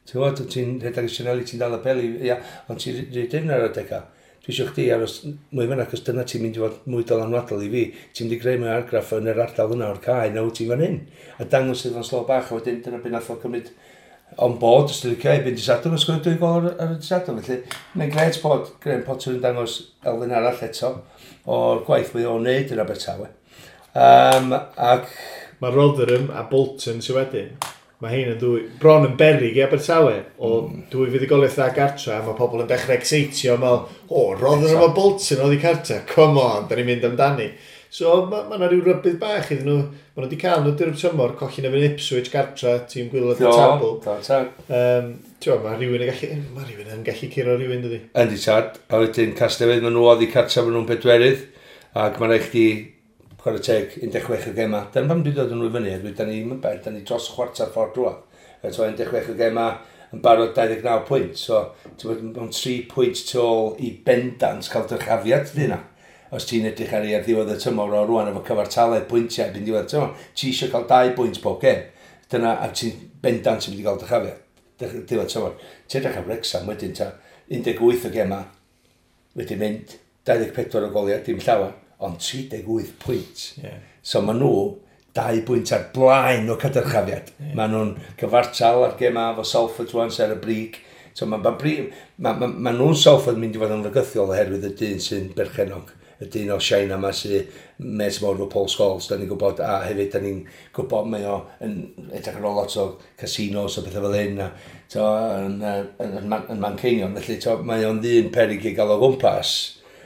Ti'n gwybod, ti'n rhedeg y sianeli, ti'n dal y peli, ia, ond ti'n rhaid dim ar adegau. Dwi eisiau chdi aros mwy fyna, achos dyna ti'n mynd i fod mwy dylanwadol i fi. Ti'n mynd i greu mwy argraff yn yr ardal yna o'r cae, na wyt ti'n fan hyn. A dangos iddo fo'n slo bach, a wedyn dyna beth nath o cymryd on board, os ti'n licio, erbyn dydd Sadwrn, a sgorio 2 gol ar y dydd Sadwrn. Felly, mae'n grêt bod Graham Potter yn dangos elfen arall eto o'r gwaith mae o'n neud yn Abertawe. Ac mae Rotherham a Bolton sydd wedyn. Mae hein yn ddwy, bron yn berig i Abertawe, o dwy fuddugoliaeth dda gartra, a mae pobl yn dechrau exeitio, meddwl, o, Rotherham a Bolton oddi cartra, come on, da ni'n mynd amdani. So, mae yna rhyw rybudd bach iddyn nhw, maen nhw wedi cael nhw drwy'r tymor, colli na fy'n Ipswich gartra, tîm gwaelod y tabl. Mae rhywun yn gallu, mae rhywun yn gallu curo rhywun, dydi? Yndi tad, a wedyn Casnewydd, maen nhw oddi cartra, maen nhw'n bedwerydd, ac mae'n rhaid chdi chwarae teg, 16 o gema. Dyna pam dwi'n dod yn nhw i fyny, oherwydd da ni'n bell, da ni dros chwarter ffordd drwodd. So 16 o gema yn barod 29 pwynt. So, ti'n bod mewn 3 pwynt tu ôl i bendant cael dyrchafiad ydy yna. Os ti'n edrych ar ei ar ddiwedd y tymor o rwan efo cyfartaledd pwyntiau erbyn diwedd y tymor, ti eisiau cael 2 bwynt pob gem. Dyna, a ti'n bendant yn mynd i gael dyrchafiad. Diwedd tymor. Ti'n edrych ar Wrexham wedyn ta 18 o gema, wedi mynd 24 o goliau, dim llawer, ond 38 pwynt. So maen nhw 2 bwynt ar blaen o cadyrchafiad. Maen nhw'n cyfartal ar gema efo Salford rwan sy ar y brig. So ma nhw'n Salford mynd i fod yn fygythiol oherwydd y dyn sy'n berchennog. Y dyn o China yma sy'n mes mawr efo Paul Scholes, da ni'n gwybod, a hefyd da ni'n gwybod mae o yn edrych ar ôl lot o casinos a bethau fel hyn, a, to, yn Manceinion. Felly to, mae o'n ddyn peryg i gael o gwmpas,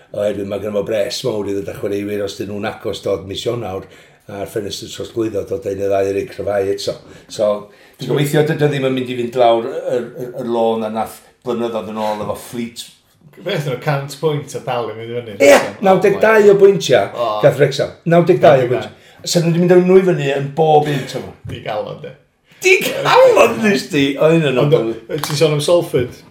oherwydd mae gynno fo bres mawr i ddod â chwaraewyr os dyn nhw'n agos dod mis Ionawr a'r ffenestr trosglwyddo dod un neu ddau i'r cryfhau eto. So, dwi'n gobeithio dydy o ddim yn mynd i fynd lawr y lôn a nath blynyddoedd yn ôl efo Fleet. Beth nhw, 100 pwynt a dal yn mynd i fyny. Ie, 92 o bwyntiau gath Wrexham. 92 o bwyntiau. So nhw wedi mynd â nhw i fyny yn bob un tymor. Di galon, de. Di galon, nes di! O, un yn ond. Ti'n sôn am Salford?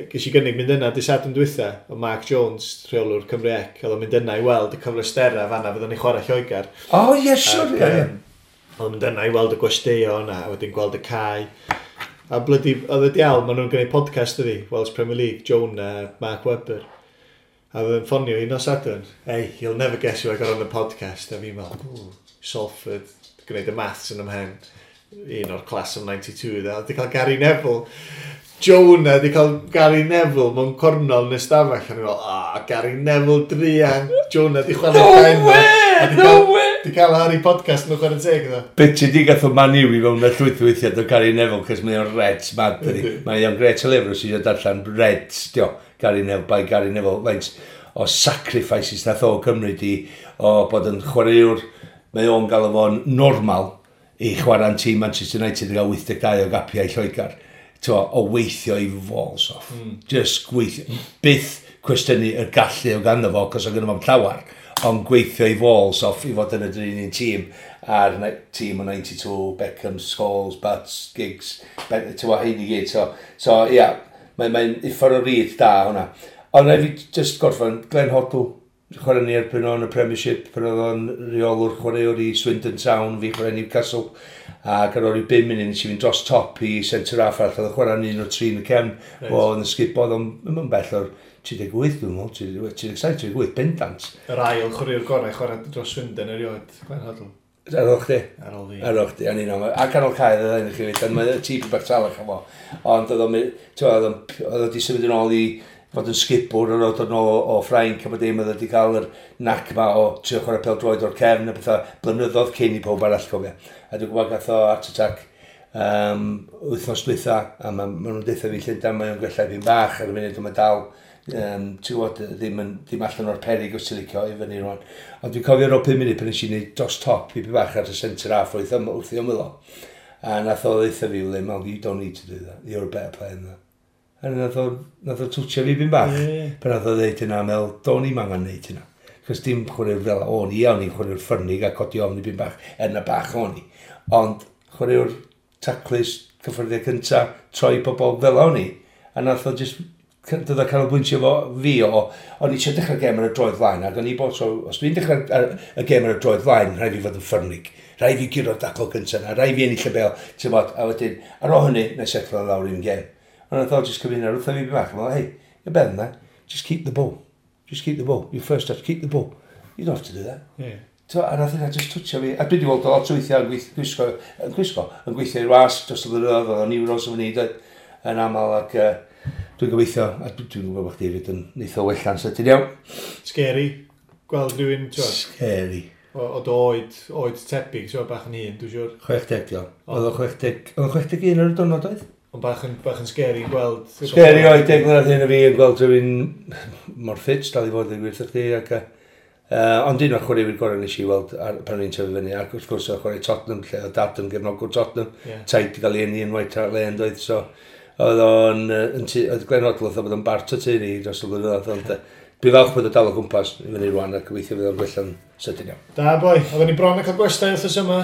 Ges i gynnig mynd yna dydd Sadwrn dwytha, o Mark Jones, rheolwr Cymru Ec, oedd o'n mynd yna i weld y cyfleusterau fanna fydden ni chwarae Lloegr. O, ie, siwr, ie. Oedd mynd yna i weld y gwesteion a wedyn gweld y cae. A blydi, oedd y diawl, maen nhw'n gwneud podcast ydi, Welsh Premier League, Jonah, Mark Webber. A oedd yn ffonio i nos Sadwrn, "Hey, you'll never guess who I got on the podcast." A fi'n meddwl, "Salford," gwneud y maths yn ymhen. Un o'r class of 92, dda. Di cael Gary Neville. Jonah di cael Gary Neville mewn cornol yn y stafell. A ni'n meddwl, "Ah, Gary Neville druan." Jonah di chwarae No pen. way! No way! Di cael Harry podcast nhw chwarae teg, dda. Be ti di gath o Man U i fewn y llwyth weithiau o Gary Neville, cos mae o'n Reds mad, dydi. Yndi. Mae o'n gret o lyfr os eisiau darllen Reds, dio, Gary Neville, by Gary Neville, faint o sacrifices nath o cymryd i o bod yn chwaraewr, mae o'n gael fo'n normal i chwarae'n tîm Manchester United i gael 82 o gapiau i Lloegr. T'wo, o weithio i balls off. Just gweithio. Byth cwestiynu y gallu o ganddo fo, cos o gynno fo'm llawar, ond gweithio i balls off i fod yn y dyn un tîm a'r tîm o 92, Beckham, Scholes, Butts, Giggs, t'wo, hein i gyd. So ia, yeah, mae'n mae uffar o read da hwnna. Ond rhaid fi just gorffen, Glenn Hoddle, chwarae ni erbyn o'n y Premiership, pan oedd o'n reolwr chwaraewr i Swindon Town, fi chwarae Newcastle, ac ar ôl i 5 munud nes i fynd dros top i centre half arall, oedd yn chwarae un o'r tri yn y cefn, o yn y sgubod, ond ddim yn bell o'r 38, dwi'n meddwl, 37, 38, bendant. Yr ail chwaraewr gorau chwarae dros Swindon erioed, Glenn Hoddle. Ar ôl chdi? Ar ôl fi. Ar ôl chdi, o'n i'n aml. A canol cae oedd o'n chi fyd, ond mae tîp bach talach am o. Ond oedd o'n, ti'n oedd o'n, oedd o di symud yn ôl i fod yn sgipwr ar ôl dod yn ôl o Ffrainc a bod dim, oedd o wedi cael yr nac ma o trio chwarae pêl-droed o'r cefn a bethau blynyddoedd cyn i pob arall cofio. A dwi'n gwybod gath o heart attack wythnos dwytha, a ma nhw'n deutha fi Llundain, mae o'n gwella fi'n bach ar y munud, ond mae dal, ti'n gwybod, ddim allan o'r perig os ti'n licio i fyny rwan. Ond dwi'n cofio ar ôl 5 munud pan nes i wneud dros top i bach ar y centre half wrth i ymwyl o. A nath o ddeutha fi, "Well, you don't need to do that. You're a better player than that." A nath o twtio fi bin bach. Pan nath o ddeud hynna, meddwl, do'n i'm angen neud hynna. Cos dim chwaraewr fel o'n i, o'n i'n chwaraewr ffyrnig a codi ofn i bin bach, er na bach o'n i. Ond chwaraewr taclus, cyffyrddiau cynta, troi pobl fel o'n i. A nath o just dod o canolbwyntio fo fi o, o'n i eisiau dechrau gêm ar y droed flaen, ac o'n i bod, so, os dwi'n dechrau y gêm ar y droed flaen, rhaid fi fod yn ffyrnig. Rhaid fi guro'r dacl cyntaf na, rhaid fi ennill y bêl, ti'n bod, a wedyn, ar ôl hynny, na i setlo lawr i'n gêm. Ond nath o just cymryd hynna, wrtho fi bach, fel, "Hey, you're better than that. Just keep the ball. Just keep the ball. Your first touch, keep the ball. You don't have to do that." So, a nath hynna just twtio fi. A dwi wedi weld o lot o weithiau yn gwisgo, yn gweithio i'r wasg dros y blynyddoedd, oedd o'n Euros yn fyny, doedd, yn aml, ac dwi'n gobeithio, a dwi'n gwybod bod chdi hefyd yn neith o wella'n sydyn iawn. Scary. Gweld rhywun, ti'n gwbod, Scary. o dy oed tebyg, ti'n gwbod, bach yn hŷn, dwi'n siŵr. 60, diol. Oedd o 60, oedd o 61 ar y diwrnod oedd? Ond bach yn scary gweld. Scary oedd 10 mlynedd hyn o fi yn gweld rhywun mor ffit, dal i fod yn gwirth chdi, ac ond un o'r chwaraewyr gorau nes i weld pan o'n i'n tyfu fyny, ac wrth gwrs oedd chwarae Tottenham, lle oedd dad yn gefnogwr Tottenham, taid di gael ei eni yn White Hart Lane, doedd, so oedd o'n, oedd Glenn Hoddle oedd bod yn bart o teulu dros y blynyddoedd, ond dwi'n falch bod o dal o gwmpas i fyny rwan ac gobeithio fydd o'n gwella'n sydyn iawn. Da, boi. Oedden ni bron yn cael gwestai wrthos yma.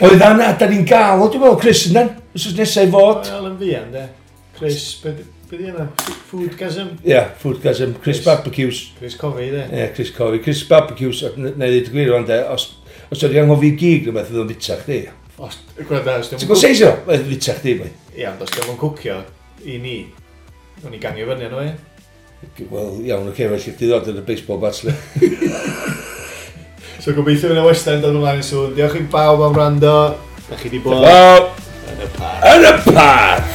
Oedd yna, da ni'n gael, o, dwi'n meddwl, Chris yna, wythnos nesaf i fod. Wel, yn fuan, de. Chris, be di yna? Foodgasm? Ie, yeah, Foodgasm, Chris Chris. Barbecues. Chris Covey, de. Ie, yeah, Chris Covey. Chris Barbecues, na i ddweud y gwir rwan, de, os ydy anghofio gig rhywbeth, fydd o'n fita chdi. Os, gwranda, os Ti'n gwybod seis o? Fydd o'n fita chdi, boi. Ia, ond os di'm yn cwcio i ni, o'n i gangio fyny arno, e. Wel, iawn, oce, felly chdi ddod yn y baseball bats, le. So gobeithio fydd y western dod ymlaen yn sŵn. Diolch i bawb am wrando. Da chi di bod Wel, yn y parc. yn y parc!